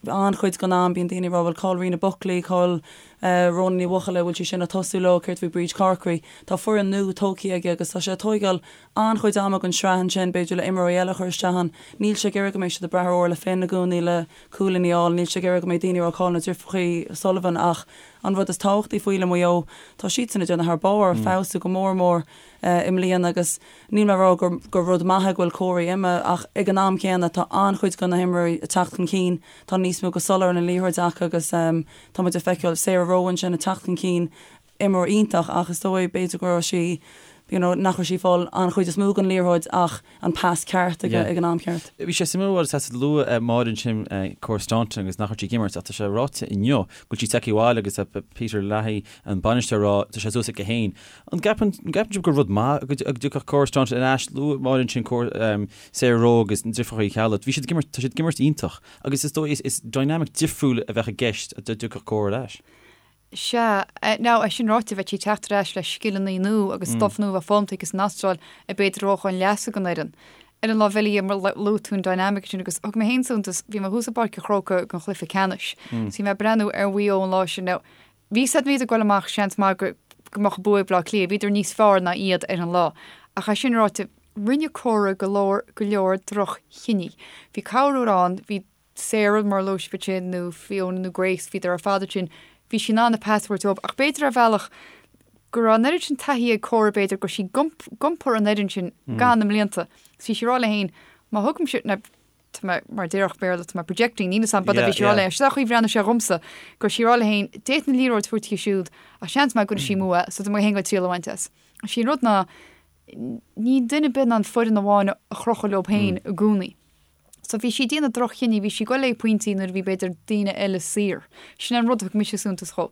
An-chuid den am bíonn daoine ag rá bhuel cá bhfuil Ríona Buckley, cá bhfuil Rhona Ní Bhuachalla, bhfuil sí sin ag tosú leo, céard faoi Bríd Corkery? Tá foireann nua tógtha aige agus tá sé ag tóigeáil an-chuid ama den sraith ansin, b'fhéidir le imreoirí eile a chur isteach ann. Níl sé ag iarraidh go mbeidh siad ag brath ar Orla Finn i gcónaí le cúilíní a fháil, níl sé ag iarraidh go mbeidh daoine ag rá cá bhfuil na deirfiúracha Sullivan ach An rud is tábhachtaí faoi le Maigh Eo, tá siadsan ag déanamh thar barr, feabhsú go mór mór i mbliana agus níl mé ag rá gur gur rud maith é go bhfuil Cora imithe ach ag an am céanna tá an-chuid de na himreoirí ag teacht chun cinn, tá níos mó go soiléir an liathróid acu agus tá muid ag feiceáil Sarah Rowe ansin ag teacht chun cinn, imreoir iontach ach is dóigh b'fhéidir go raibh sí you know nach raibh sí ag fáil an chuid is mó den liathróid ach an pas ceart ag an am ceart. Bhí sé suimiúil mar tá luaigh Máire ansin Cora Staunton agus nach raibh sí ag imirt ach tá sé ráite inniu go bhfuil sí tagtha abhaile agus Peter Leahy an bainisteoir ag rá tá sé suas aici féin. An gceapann sibh gur rud maith go dtiocfadh Cora Staunton ar ais? Luaigh Máire ansin Sarah Rowe agus na deirfiúracha Uí Cheallaigh. Bhí siad ag imirt, tá siad ag imirt iontach agus is dóigh is dynamic difriúil a bheadh i gceist dá dtiocfadh Cora ar ais. Sea. Now, é sin ráite, bheadh sí ag teacht ar ais le scileanna nua agus stuff nua a bheith foghlamtha aici san Astráil a b'fhéidir a thabharfadh chun leasa don fhoireann. Ar an lámh eile dhe, mar luaigh tú an dynamic sin agus thug mé féin suntas, bhí mé thuas i bPáirc an Chrócaigh don chluiche ceannais. So bhí mé ag breathnú ar Mhaigh Eo an lá sin. Now, bhí a fhios a'd iad ag goil amach, seans maith go go mbeadh an bua ag Bleá Cliath, bhíodar níos fearr ná iad ar an lá. Ach é sin ráite, rinne Cora go leor go leor droch-chinní. Bhí corruair ann, bhí Sarah, mar a luaigh sibh ansin, nó Fiona nó Grace, bhíodar ar fad ansin, bhí sí in ann an pas a thabhairt dóibh ach b'fhéidir ar bhealach go raibh an oiread sin taithí ag Cora b'fhéidir go raibh sí ag iompar an fhoireann sin gan na mblianta. So bhí sí ag rá léi féin, má thugaimse, now tá mé, mar a déarfadh Béarla, tá mé projecting, níl fhios a'm, but bhí sí ag rá léi, sin an chaoi a bhreathnaigh sé dhomsa, go raibh sí ag rá léi féin, d'fhéadfainn an liathróid a thabhairt di siúd ach seans maith go gcuirfidh sí amú é, so tá mé féin ag triail a bhaint as. Sé an rud ná, níl duine ar bith in ann foireann amháin a chrochadh leo féin i gcónaí. So bhí sí ag déanamh droch-chinní, bhí sí ag goil le pointí nuair a bhí b'fhéidir daoine eile saor. Sin é an rud a thug mise suntas dhó.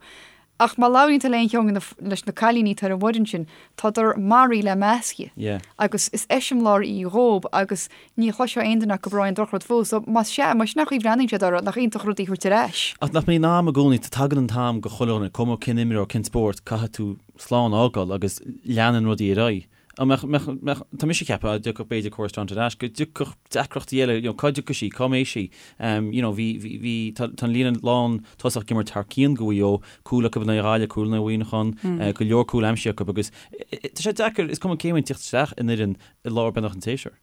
Ach má labhraíonn tú le aon cheann de na, leis na cailíní atá ar an bhfoireann sin, tádar maraithe le measctha. Yeah. Agus is eiseamláir í dhób agus ní chloisfeá aon duine acu ag rá aon drochrud fúithi. So más sea, más sin an chaoi a bhreathnaíonn siad uirthi, nach iontach rud í a thabhairt ar ais. Ach nach mbíonn am i gcónaí, tagann an t-am go chuile dhuine, cuma cén imreoir, cén spórt, caithfidh tú slán a fhágáil agus leanann rudaí ar aghaidh. An mbeadh, mbeadh, mbeadh, tá mise ag ceapadh, dá dtiocfadh b'fhéidir Cora Staunton ar ais, go dtiocfadh deacrachtaí eile, you know, cá dtiocfaidh sí, cá mbeidh sí? Um, you know, bhí, bhí, bhí, tá, tá an líne lán tosach ag imirt thar cionn do Mhaigh Eo, cúl acu in aghaidh Ghaillimh, cúl in aghaidh Mhuineacháin, mm. uh, go leor cúl aimsithe acu agus tá sé deacair, is cuma cé bhfuil teacht isteach in fhoireann i lár beagnach an tséasúir.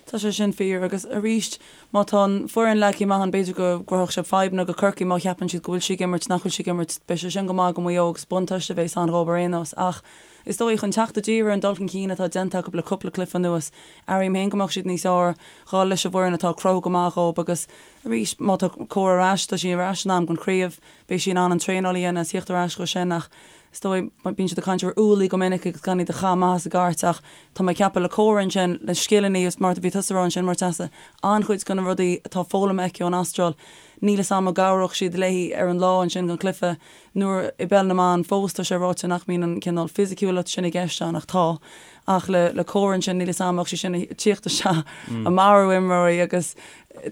Tá sé sin fíor agus arís má tá an foireann leagtha amach ann b'fhéidir go gcruthódh sé fadhbanna go Corcaigh má cheapann siad go bhfuil sí ag imirt nach bhfuil sí ag imirt beidh sé sin go maith go Maigh Eo agus buntáiste a bheas ann dhóibh ar aon nós ach is dóigh chun teacht i dtír ar an dul chun cinn atá déanta acu le cúpla cluiche anuas airím féin go mbeadh siad níos fearr dhul leis an bhfoireann atá ag cruthú go maith dhóibh agus arís má tá Cora ar ais tá sí ar ais in am don chraobh beidh sí in ann an traenáil a dhéanamh is theacht ar ais dhó sin ach Is dóigh, bíonn siad ag caint ar ualaí go minic agus gan iad a chaitheamh amach as an gcairt ach tá mé ag ceapadh le Cora ansin, le scileanna agus mar a bhí tusa a rá ansin Murtasa, an-chuid de na rudaí atá foghlamtha aici ón Astráil, níl 'fhios a'm an gcabhródh siad léi ar an lá ansin don chluiche nuair i bpeil na mban fós tá sé ráite nach mbíonn an cineál fisiciúlacht sin i gceist ann ach tá. Ach le le Cora ansin níl 'fhios a'm an mbeadh sí sin ag tíocht isteach ag marú imreoirí agus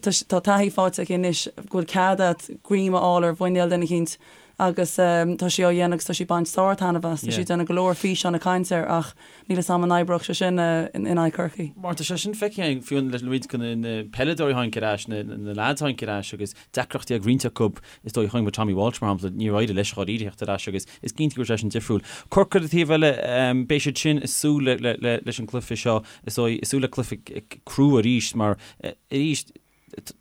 tá taithí faighte aici anois go bhfuil cead a't greim a fháil ar mhuinéal duine eicínt agus tá sí á dhéanamh agus tá sí ag baint sár-taitneamh as. Tá sí ag déanamh go leor físeán ag caint air ach níl 'fhios a'm an oibreodh sé sin in aghaidh Chorcaí. Mar tá sé sin feicthe againn fiú le roinnt de na peileadóirí a tháinig ar ais, na leaids a tháinig ar ais agus deacrachtaí ag roinnt acu, is dóigh, chonaic muid Tommy Walsh mar shampla, níor éirigh leis dháiríre theacht ar ais agus is cinnte go raibh sé sin difriúil. Corcaigh ar an taobh eile, beidh siad sin ag súil leis an gcluiche seo, is dóigh, ag súil le cluiche crua arís mar arís,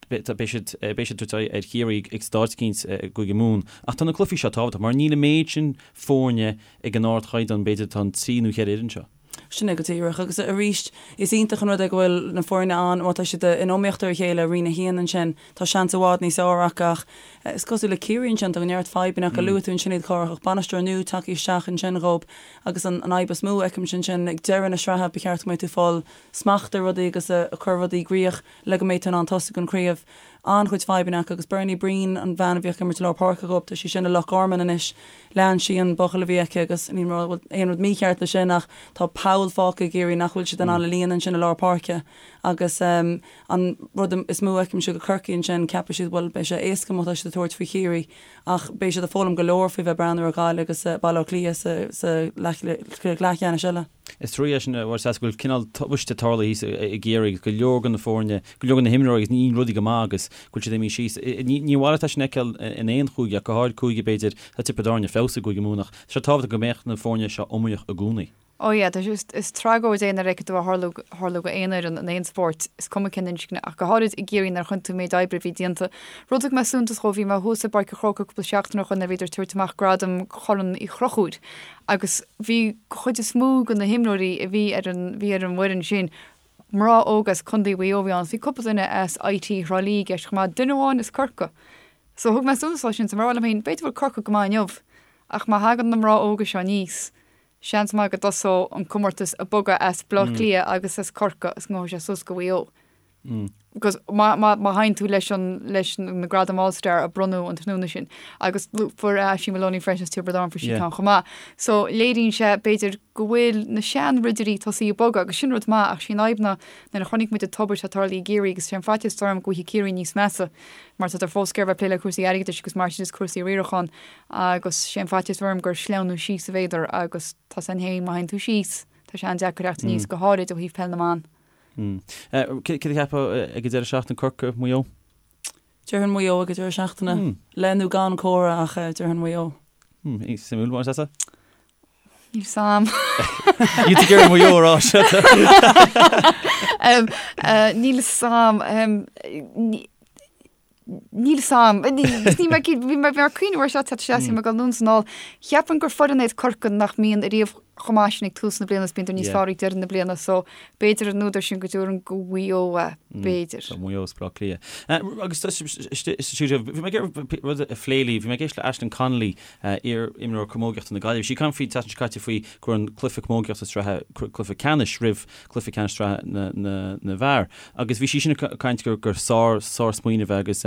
Beidh siad beidh siad ag tabhairt aghaidh ar Chiarraí ag staid eicínt i gCúige Mumhan. Ach tá na cluichí seo tábhachtach mar níl an méid sin foirne ag an ardchaighdeán, b'fhéidir, atá an trí nó cheithre fhoireann seo. Sin é go díreach. Agus arís, is iontach an rud é go bhfuil na foirne ann, má tá siad in iomaíocht ar a chéile i Roinn 1 ansin, tá seans i bhfad níos fhearr acu ach is cosúil le Ciarraí ansin, tá neart fadhbanna acu. Luaigh tú ansin iad Cárthach, ach bainisteoir nua tagtha isteach ansin dhób agus an fhadhb is mó a fheicimse ansin, ag deireadh na sraithe ba cheart go mbeidh tú ag fáil smacht ar rudaí agus ag cur rudaí i gcrích le go mbeidh tú in ann tosú don chraobh. An-chuid fadhbanna acu agus Bernie Breen, an bhean a bhíodh ag imirt i lár páirce dhób, tá sí sin i Loch Garman anois. Lean sí an buachaill a bhí aici agus ní raibh aon rud mícheart leis sin ach tá poll fágtha i gCiarraí nach bhfuil siad in ann a líonadh ansin i lár páirce agus an rud is mó a fheicimse go Corcaigh ansin, ceapfaidh siad bhuel beidh sé éasca má tá siad ag tabhairt faoi Chiarraí ach beidh siad ag foghlaim go leor faoi bheith ag breathnú ar Ghaillimh agus Baile Átha Cliath sa leathcheannais eile. Is trua é sin, a Mháire Treasa, go bhfuil cineál tubaiste tarlaithe thíos i gCiarraí agus go leor de na foirne, go leor de na himreoirí agus ní rudaí go maith agus go bhfuil siad imithe síos. Ní mhaith leat é sin a fheiceáil in aon chúige ach go háirid cúige, b'fhéidir, tá Tiobraid Árann ar feabhas i gCúige Mumhan ach tá sé tábhachtach go mbeadh na foirne seo iomaíoch i gcónaí. Ó yeah, tá sé, is tragóid é nuair a fheiceann tú é ag tarlú go aon fhoireann in aon spórt, is cuma cén inscne, ach go háirid i gCiarraí nuair a chonaic tú an méid oibre a bhí déanta. Rud a thug mé suntas dhó, bhí mé thuas i bPáirc an Chrócaigh cúpla seachtain ó shoin nuair a bhíodar ag tabhairt amach gradam Chorn Uí Chonchúir agus bhí chuid is mó de na himreoirí a bhí ar an bhí ar an bhfoireann sin, mná óga as Contae Mhaigh Eo a bhí ann, bhí cúpla duine as IT Thrá Lí i gceist chomh maith, duine amháin as Corcaigh. So thug mé suntas dó sin, so mar a rá liom féin, b'fhéidir go bhfuil Corcaigh go maith inniu, ach má thagann na mná óga seo aníos, seans maith go dtosóidh an comórtas ag bogadh as Baile Átha Cliath agus as Corcaigh is go ngabhfaidh sé suas go Mhaigh Eo. Because má théann tú leis an leis na gradaim All Star a bronnadh an tráthnóna sin agus fuair Aisling Moloney freisin as Tiobraid Árann fuair sí ceann chomh maith. So léiríonn sé b'fhéidir go bhfuil na seanridirí tosaithe ag bogadh agus sin rud maith ach sí an fhadhb ná nuair a chonaic muid an tubaiste atá tarlaithe i gCiarraí agus sé an faitíos atá orm go bhfaighidh Ciarraí níos measa mar tá fós ag iarraidh bheith ag plé le cúrsaí airgeadais agus mar sin is cúrsaí riaracháin agus sé an faitíos orm gur sleamhnú síos a bheadar agus tá san féin má théann tú síos tá sé an-deacair teacht aníos go háirid ó thaobh peil na mban. Céard a cheapfá ag an deireadh seachtaine, Corcaigh, Maigh Eo? Déarfainn Maigh Eo ag an deireadh seachtaine. Le nó gan Cora ach déarfainn Maigh Eo. Suimiúil, mar is ea? Níl 's a'm. Níl tú ag iarraidh Maigh Eo a rá seo. Níl 's a'm. Níl 's a'm. Ní mé bhí mé ag cuimhneamh air seo teacht isteach is bhí mé ag dul anonn is anall. Cheapfainn gur foireann iad Corcaigh nach mbíonn ariamh chomh maith sin ag tús na bliana is bíonn níos fearr ag deireadh na bliana so b'fhéidir an údar sin go dtabharfainn go Mhaigh Eo é, b'fhéidir. So Maigh Eo is Baile Átha Cliath. Agus bhí mé ag iarraidh rud a phlé libh, bhí mé ag éisteacht le Aisling Connolly, iar-imreoir camógaíochta na Gaillimhe. Bhí sí ag caint faoi an tseachtain seo caite faoi go raibh an cluiche camógaíochta sraithe, cluiche ceannais roimh cluiche ceannais sraithe na bhfear. Agus bhí sí sin ag caint gur gur sár sársmaoineamh é agus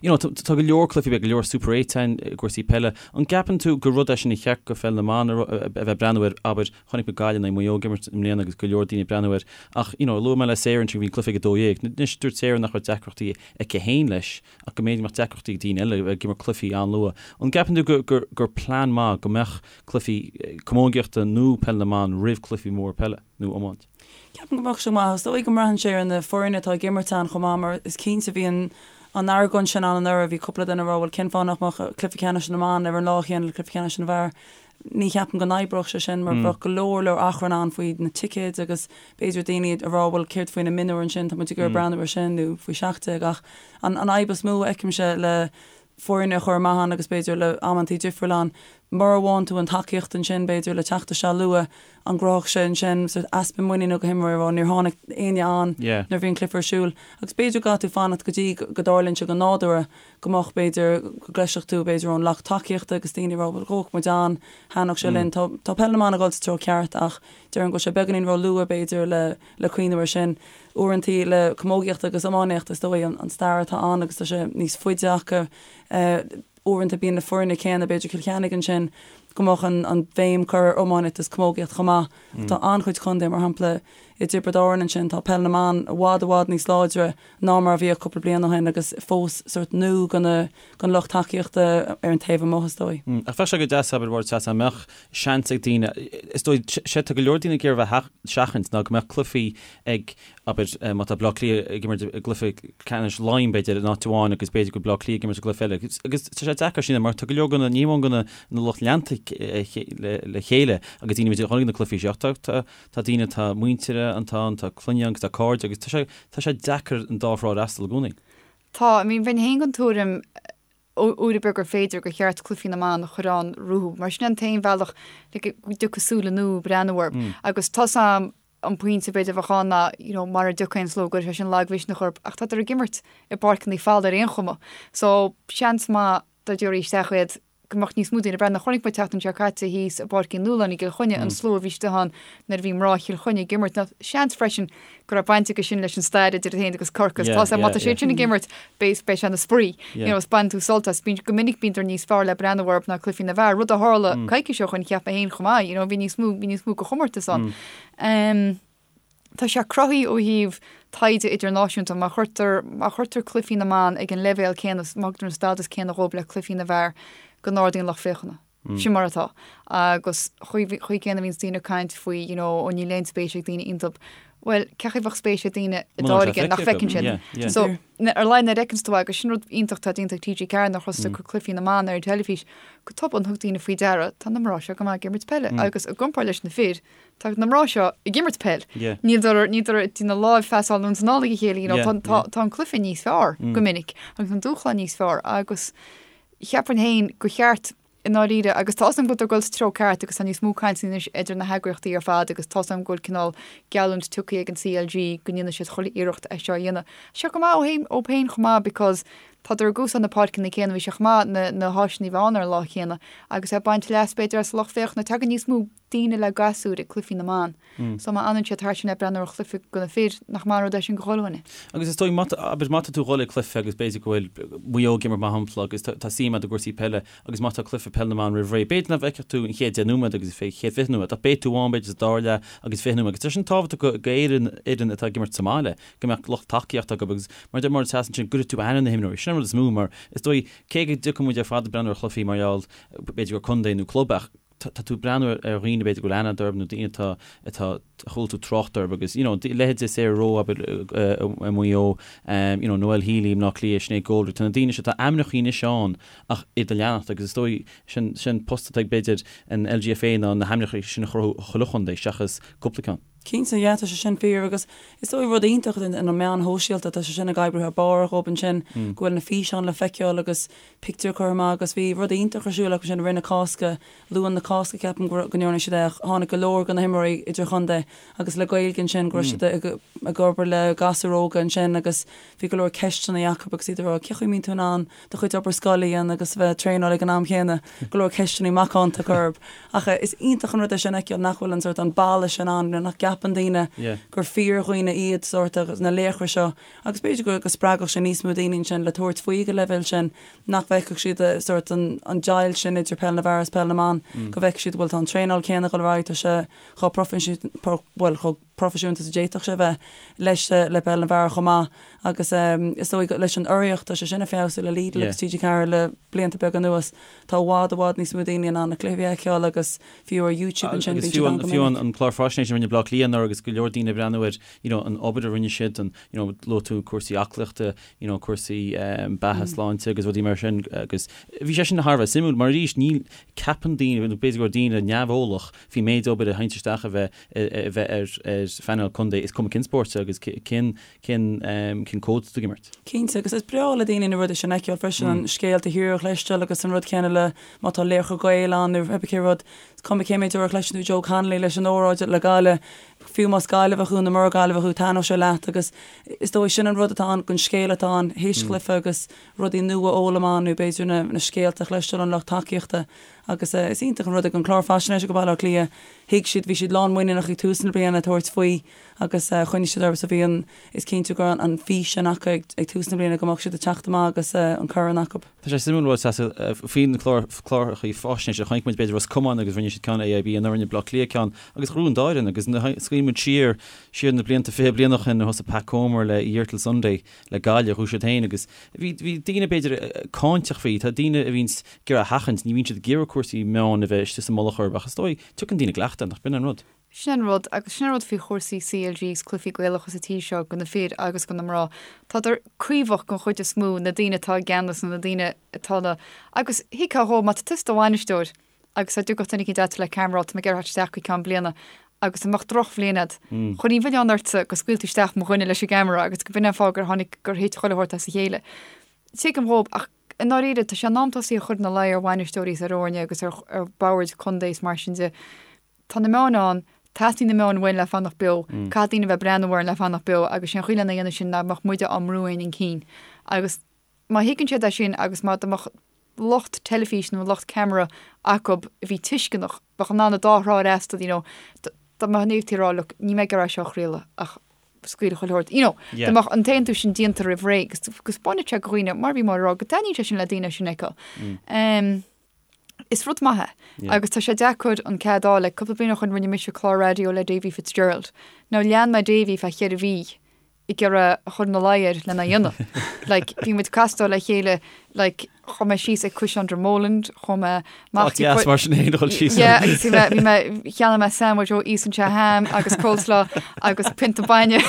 you know tá go leor cluichí, beidh go leor Super 8 ann i gcúrsaí peile. An gceapann tú gur rud é sin a cheart go pheil na mban a bheith ag breathnú air, abair, chonaic muid Gaillimh in aghaidh Maigh Eo ag imirt i mbliana agus go leor daoine ag breathnú air ach you know luaigh mé le Sarah ansin go bhí an cluiche ag 12. Anois dúirt Sarah nach raibh deacrachtaí aici féin leis ach go mb'fhéidir go mbeadh deacrachtaí ag daoine eile ag imirt cluichí an-luath. An gceapann tú gur gur gur plean maith go mbeadh cluichí camógaíochta nó peil na mban roimh cluichí móra peile nó iomáint? Ceapaim go mbeadh sé maith. Is dóigh go mbraitheann sé ar na foirne atá ag imirt ann chomh maith mar is cinnte bhí an an argóint sin ann anuraidh, bhí cúpla duine ag rá bhuel cén fáth nach mbeadh cluiche ceannais na mban ar an lá chéanna le cluiche ceannais na bhfear. Ní cheapaim go n-oibreodh sé sin mar bheadh go leor leor achrann ann faoi na ticéid agus b'fhéidir daoine ag rá bhuel céard faoi na mionúir ansin, tá muid ag iarraidh breathnú air sin nó faoi 17 ach an an fhadhb is mó a fheicimse le foirne a chur amach ann agus b'fhéidir le amantaí difriúil ann, mura bhfaigheann tú an tacaíocht ansin b'fhéidir le teacht isteach luath, an gcruthódh sé ansin sort easpa muiníne go himreoirí a rá níor tháinig éinne ann nuair a bhí an cluiche ar siúl agus b'fhéidir go gcaithfidh tú fanacht go dtí go dtarlaíonn sé go nádúrtha go mbeadh b'fhéidir go gcloisfeadh tú b'fhéidir ón lucht tacaíochta agus daoine ag rá bhuel gabhfaidh muid ann, thaitneodh sé linn. Tá tá peil na mban ag dul sa treo ceart ach déarfainn go bhfuil sé beagáinín ró-luath b'fhéidir le le cuimhneamh air sin. Uaireantaí le camógaíocht agus iománaíocht is dóigh an stair atá ann agus tá sé níos faide acu. Uaireanta bíonn na foirne céanna, b'fhéidir Cill Chainnigh ansin, go mbeadh an an bhéim curtha ar iománaíocht is camógaíocht chomh maith. Tá an-chuid contae, mar shampla i dTiobraid Árann ansin, tá peil na mban i bhfad i bhfad níos láidre ná mar a bhíodh cúpla bliain ó shin agus fós sórt nua go na don lucht tacaíochta ar an taobh amuigh is dóigh. Ach bheadh sé go deas, abair, mar dá mbeadh seans ag daoine, is dóigh, sé tá go leor daoine ag iarraidh bheith a sheachaint ná go mbeadh cluichí ag, abair, má tá Bleá Cliath ag imirt i gcluiche ceannais Laighean, b'fhéidir, in áit amháin agus b'fhéidir go bhfuil Bleá Cliath ag imirt i gcluiche eile. Agus tá sé deacair sin mar tá go leor de na, ní amháin de na lucht leanta le chéile agus daoine b'fhéidir a chonaic na cluichí seo ach tá, tá, tá daoine, tá muintir ann, tá clainne agus tá cairde agus tá sé, tá sé deacair an dá thrá a fhreastal i gcónaí. Tá, I mean, bheinn féin den tuairim. Uair ar bith gur féidir, gur cheart cluichí na mban a chur ann rompu, mar sin an t-aon bhealach le go dtiocfaidh súile nua breathnú orthu. Agus tá's a'm an pointe b'fhéidir a bheadh ann ná you know mara dtiocfaidh an slua go gcuirfidh sé sin lagmhisneach orthu ach tádar ag imirt i bpáirceanna folamh ar aon chuma. So seans maith dá dtabharfaí isteach iad go mbeadh níos mó daoine ag breathnú. Chonaic muid an tseachtain seo caite thíos i bPáirc Uí Nualláin i gCill Chainnigh an slua a bhí istigh ann nuair a bhí mná Chill Chainnigh ag imirt. Now seans freisin go raibh baint aige sin leis an stair idir iad féin agus Corcaigh. Tá má tá siad sin ag imirt beidh beidh sé ina spraoi. You know, is baineann tú sult as. Bíonn go minic bíonn níos fearr le breathnú orthu ná cluichí na bhfear. Rud a tharla coicís ó shoin cheap mé féin chomh maith, you know, bhí níos mó bhí níos mó de chomórtas ann. Um, Tá sé cruthaithe ó thaobh taighde idirnáisiúnta, má chuirtear, má chuirtear cluichí na mban ag an leibhéal céanna, má thugtar an stádas céanna dhóibh le cluichí na bhfear, go n-ardaíonn lucht féachana. Sin mar atá. Agus chaoi, chaoi céanna a bhíonns daoine ag caint faoi, you know, ó níl aon spéis ag daoine iontub. Bhuel, cé chaoi bheadh spéis ag daoine i dtáirge nach bhfeiceann siad? So, ar a laghad nuair a fheiceanns tú agus sin rud iontach atá déanta ag TG4 nuair a thosaigh ag cur cluichí na mban ar an teilifís, go tobann thug daoine faoi deara, tá na mná seo go maith ag imirt peile agus i gcomparáid leis na fir, Tá na mná seo ag imirt peil. Níl níl ag na lámh-phasáil anonn is anall ag a chéile, you know, tá, tá, tá an cluiche níos fearr go minic agus an dúshlán níos fearr agus cheapfainn féin gur cheart i ndáiríre agus tá's agam go bhfuil ag dul sa treo ceart agus tá níos mó cainte anois idir na heagraíochtaí ar fad agus tá's agam go bhfuil cineál geallúint tugtha ag an CLG go ndéanfaidh siad chuile iarracht é seo a dhéanamh. Seo go maith ó thaobh ó féin chomh maith because tádar ag úsáid na páirceanna céanna, bhí sé chomh maith na, na háiseanna a bheith ann ar an lá chéanna agus ag baint leas b'fhéidir as lucht féachana. Tagann níos mó daoine le gasúir ag cluichí na mban. So má fhanann siad thart sin le breathnú ar chluiche do na fir, nach maith an rud é sin do chuile dhuine. Agus is dóigh, má tá, abair, má tá tú ag dhul ag cluiche agus b'fhéidir go bhfuil Maigh Eo ag imirt mar shampla agus tá suim agat i gcúrsaí peile agus má tá cluiche peil na mban roimh ré, b'fhéidir nach bhfeicfeadh tú an chéad deich nóiméad agus an chéad 20 nóiméad ach beidh tú ann b'fhéidir sa dara leath agus 20 nóiméad agus tá sin tábhachtach do fhoireann, fhoireann atá ag imirt sa mbaile go mbeadh lucht tacaíochta acu agus mar a deir Máire Treasa ansin go gcuirfidh tú aithne ar na himreoirí. Sin an rud is mó mar is dóigh cé go dtiocfaidh muid ar fad ag breathnú ar chluichí mar gheall b'fhéidir gur contae nó club ach tá tú ag breathnú ar dhaoine b'fhéidir go bhfuil aithne agat orthu nó daoine atá, atá, a chuala tú trácht orthu agus you know leithéidí Sarah Rowe abair i Maigh Eo, you know Noelle Healy i mBleá Cliath, Sinéad Goldrick, tá na daoine seo, tá ainmneacha anois ann ach iad a leanacht agus is dóigh sin, sin post atá ag b'fhéidir an LGFA ná na hainmneacha sin a chruthú chuile chontae seachas cúpla ceann. Cinnte, yeah, tá sé sin fíor agus is dóigh rud iontach na meáin shóisialta, tá sé sin ag oibriú thar barr dhóibh ansin, go bhfuil na físeáin le feiceáil agus pictiúir curtha amach agus bhí rud iontach ar siúl acu sin i rith na Cásca, Luan na Cásca ceapaim go ndearna siad é ach tháinig go leor de na himreoirí idirchontae agus le Gaeilge ansin go raibh siad ag obair le gasúir óga ansin agus bhí go leor ceisteanna acu agus iad ag rá cé chaoi a mbíonn tú in ann do chuid obair scoile a dhéanamh agus a bheith ag traenáil ag an am chéanna, go leor ceisteanna macánta acu orthu. Ach is iontach an rud é sin a fheiceáil nach bhfuil an sórt an balla sin ann, nach gceapann daoine gur fíordhaoine iad sórt na laochra seo Agus b'fhéidir go go spreagfadh sé níos mó daoine ansin le tabhairt faoi ag an leibhéal sin, nach bhfeicfeadh siad sórt an an deighilt sin idir peil na bhfear agus peil na mban, go bhfeicfeadh siad bhuel tá an traenáil céanna ag dul ar aghaidh, tá sé chomh proifisiúnta, bhuel chomh proifisiúnta is a d'fhéadfadh sé a bheith leis le peil na bhfear chomh maith. Agus is dóigh leis an urraíocht, tá sé sin ag feabhsú le Lidl agus TG4 le blianta beaga anuas, tá i bhfad i bhfad níos mó daoine in ann na cluichí a fheiceáil agus fiú ar YouTube ansin bíonn siad ann go minic. Agus fiú an clár faisnéise a rinne Bleá Cliath anuraidh agus go leor daoine ag breathnú air, you know, an obair a rinne siad, an, you know, luaigh tú cúrsaí aclaíochta, you know, cúrsaí beatha, sláinte agus rudaí mar sin agus bhí sé sin thar a bheith suimiúil mar arís níl, ceapann daoine, nó b'fhéidir go raibh daoine neamheolach faoin méid obair a théann isteach a bheith, a bheith ar, ar phainéal contae is cuma cén spórt agus cén, cén, cén cód atá tú ag imirt. Cinnte, agus is breá le daoine na rudaí sin a fheiceáil freisin, an scéal taobh thiar a chloisteáil agus an rud céanna le má tá laochra Gael ann nó pé cé rud, is cuma cé méid uair a chloiseann tú Joe Connolly leis an óráid le Gaillimh, Fiú más Gaillimheach thú nó mura Gaillimheach thú, taitneoidh sé leat agus is dóigh sin an rud atá ann, an scéal atá ann théis chluiche agus rudaí nua a fhoghlaim ann nó b'fhéidir na scéalta a chloisteáil ón lucht tacaíochta agus is iontach an rud é an clár faisnéise go Baile Átha Cliath, thuig siad, bhí siad lán muiníneach ag tús na bliana tabhairt faoi agus choinnigh siad orthu so bhí an, is cinnte go raibh an fís sin acu ag tús na bliana go mbeadh siad ag teacht amach agus an corn acu. Tá sé suimiúil rud faoi na cláracha faisnéise. Chonaic muid b'fhéidir Ros Comáin agus rinne siad ceann AIB anuraidh rinne Bleá Cliath ceann agus ghnóthaigh an dá fhoireann agus smaoiníonn muid siar siar na blianta 20 bliain ó shin nuair a thosaigh Pat Comer le A Year Till Sunday le Gaillimh ghnóthaigh siad féin agus bhí bhí daoine b'fhéidir cáinteach faoi tá daoine a bhíonns ag iarraidh a sheachaint ní bhíonn siad ag iarraidh cúrsaí meáin a bheith istigh sa mullach orthu ach is dóigh tiocfaidh daoine i gcleachtadh nach b'in an rud. Sin an rud, agus sin an rud faoi chúrsaí CLG is cluichí Gaelacha sa tír seo, go na fir agus go na mná. Tádar caomhach den chuid is mó, na daoine atá i gceannas nó na daoine atá na. Agus thuigfeá dhó, má tá tusa i do bhainisteoir agus dá dtiocfadh duine eicínt agat le ceamara, tá mé ag iarraidh theacht isteach go ceann bliana agus dá mbeadh drochbhliain agat, chuirfinn an milleán ortsa go scaoil tú isteach mo dhuine leis an gceamara agus go b'in an fáth gur tháinig, gur thit chuile shórt as a chéile. Tuigim dhóibh ach. i ndáiríre, tá sé in am tosaí a chur ina luí ar bhainisteoirí is ar fhoirne agus ar ar bhoird contae is mar sin de. Tá na meáin ann, teastaíonn na meáin uainn le fanacht beo, caithfidh daoine a bheith ag breathnú orainn le fanacht beo agus sé an chaoi lena dhéanamh sin ná go mbeadh muide á mbrú féin chun cinn. Agus má thuigeann siad é sin agus má dá mbeadh lucht teilifíse nó lucht ceamara acu a bhí tuisceanach, bheadh in ann an dá thrá a fhreastal, you know, dá mbeadh an fhéadfaí a rá look, níl mé ag iarraidh seo a chraoladh ach scaoil chuile shórt, you know, dá mbeadh an t-aontú sin déanta roimh ré agus go 'spáinfeadh sé do dhaoine, mar a bhí Máire ag rá, go dtaitníonn sé sin le daoine sin a fheiceáil. Is rud maith é agus tá sé deacair an cead a fháil. Like, cúpla bliain ó shoin rinne mise clár raidió le Davy Fitzgerald. Now lean mé Davy feadh cheithre mhí ag iarraidh a chur ina luí air lena dhéanamh. Like, bhí muid ag castáil le chéile, like, chuaigh mé síos ag Caisleán Dromoland, chuaigh mé amach Áit dheas mar sin féin a dhul síos. Yeah, agus bhí mé, bhí mé, cheannaigh mé sandwich ó Íosann sé ham agus coleslaw agus pionta bainne.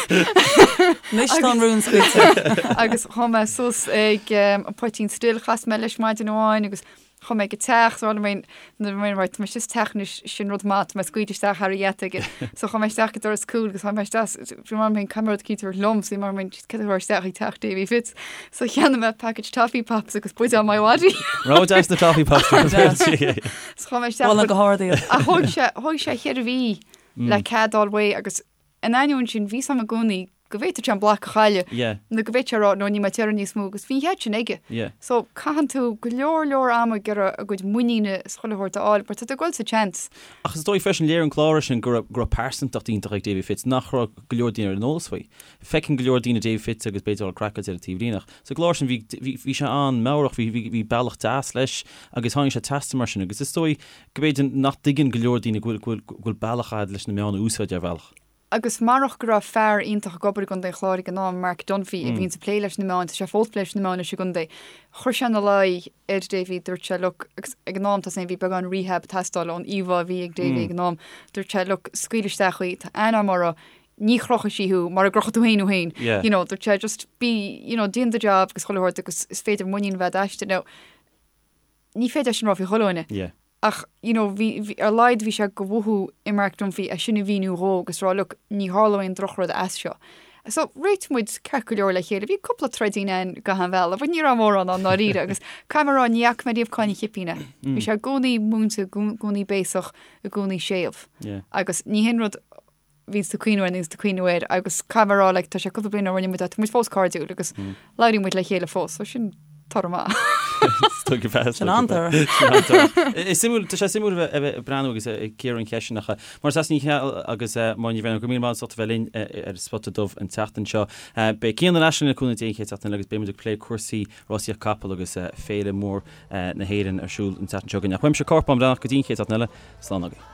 Anois tá an rún scaoilte. Agus chuaigh mé suas ag um, an Poitín Stil, chas mé leis maidin amháin agus Chuaigh mé go teach, so mé nuair mé right, tá mé istigh sa teach anois, sin rud maith, tá mé scaoilte isteach thar an gheata aige. So chuaigh mé isteach go doras cúil agus chuaigh mé isteach, bhí mar mé caithfidh mé rud eicínt a thabhairt liom, so bhí mar mé cad a thabharfá isteach ag teach Davy Fitz. So cheannaigh mé package Toffee Pops agus buidéal MiWadi. Rogha deas na Toffee Pops. So chuaigh mé isteach. Mholfainn go hard iad. Ach thóg sé, thóg sé cheithre mhí le cead a fháil uaidh agus In ainneoin sin, bhí 's a'm i gcónaí go bhféadfadh sé an block a chailleadh Yeah. nó go bhféadfadh sé a rá no níl mé ag iarraidh níos mó agus bhí an chead sin aige. Yeah. So caitheann tú go leor leor ama ag iarraidh a gcuid muiníne is chuile shórt a fháil mar tá tú ag dul sa tseans. Ach is dóigh freisin, léirigh an clár sin go raibh go raibh pearsantacht iontach ag Davy Fitz nach raibh go leor daoine ar an eolas faoi. Feiceann go leor daoine Davy Fitz agus b'fhéidir dul craiceáilte ar an taobhlíne ach sa gclár sin bhí bhí bhí sé an-meabhrach, bhí bhí bhí bealach deas leis agus tháinig sé trasna mar sin agus is dóigh go mb'fhéidir nach dtuigeann go leor daoine go bhfuil go bhfuil bealach a'd leis na meáin a úsáid ar bhealach. Agus marach go raibh fear iontach ag obair i gContae an Chláir ag an am, Mark Dunphy, a bhíonns ag plé leis na meáin, tá sé fós ag plé leis na meáin anois i gcontae, chuir sé ina luí ar Davy, dúirt sé, look, agus ag an am tá 's a'm bhí beagán rehab ag teastáil ón íomhá a bhí ag Davy ag an am, dúirt sé, look, scaoil isteach í, tá aithne a'm uirthi, ní chrochfaidh sí thú mara gcrochfaidh tú féin thú féin, you know, dúirt sé, just be, you know, déan do job agus chuile shórt agus is féidir muinín a bheith a'd aisti. Now, ní féidir é sin a rá faoi chuile dhuine. Yeah. Ach, you know, bhí, bhí, ar a laghad bhí sé de mhothú i Mark Dunphy é sin a mhíniú dhó agus rá, look, ní tharlóidh aon drochrud as seo. So, réitigh muid ceart go leor le chéile. Bhí cúpla troidín ann gach aon bhealach, but ní raibh mórán ann ndáiríre agus caithfidh mé a rá, ní fhaca mé riamh cáin an chipín air. Bhí sé i gcónaí múinte, i gcónaí béasach, i gcónaí séimh. Yeah. Agus ní hin rud bhíonns tú ag cuimhniú air, níonns tú ag cuimhniú air agus caithfidh mé a rá like tá sé cúpla bliain ó rinne muid é, tá muid fós cairdiúil agus labhraíonn muid le chéile fós, so sin toradh maith. Sin an-toradh. Is suimiúil, tá sé suimiúil a bheith a bheith ag breathnú agus ag cíoradh an cheist sin ach Máire Treasa Ní Cheallaigh agus Máire Ní Bhraonáin, go raibh míle maith agat as ucht a bheith linn ar Spota Dubh an tseachtain seo. Beidh Cian ar ais linn le cúnamh Dé an chéad seachtain eile agus beidh muid ag plé cúrsaí rásaíocht capall agus féile mór na hÉireann ar siúl an tseachtain seo chugainn. Ach uaimse Cárthach Bán Breathnach go dtí an chéad seachtain eile, slán agaibh.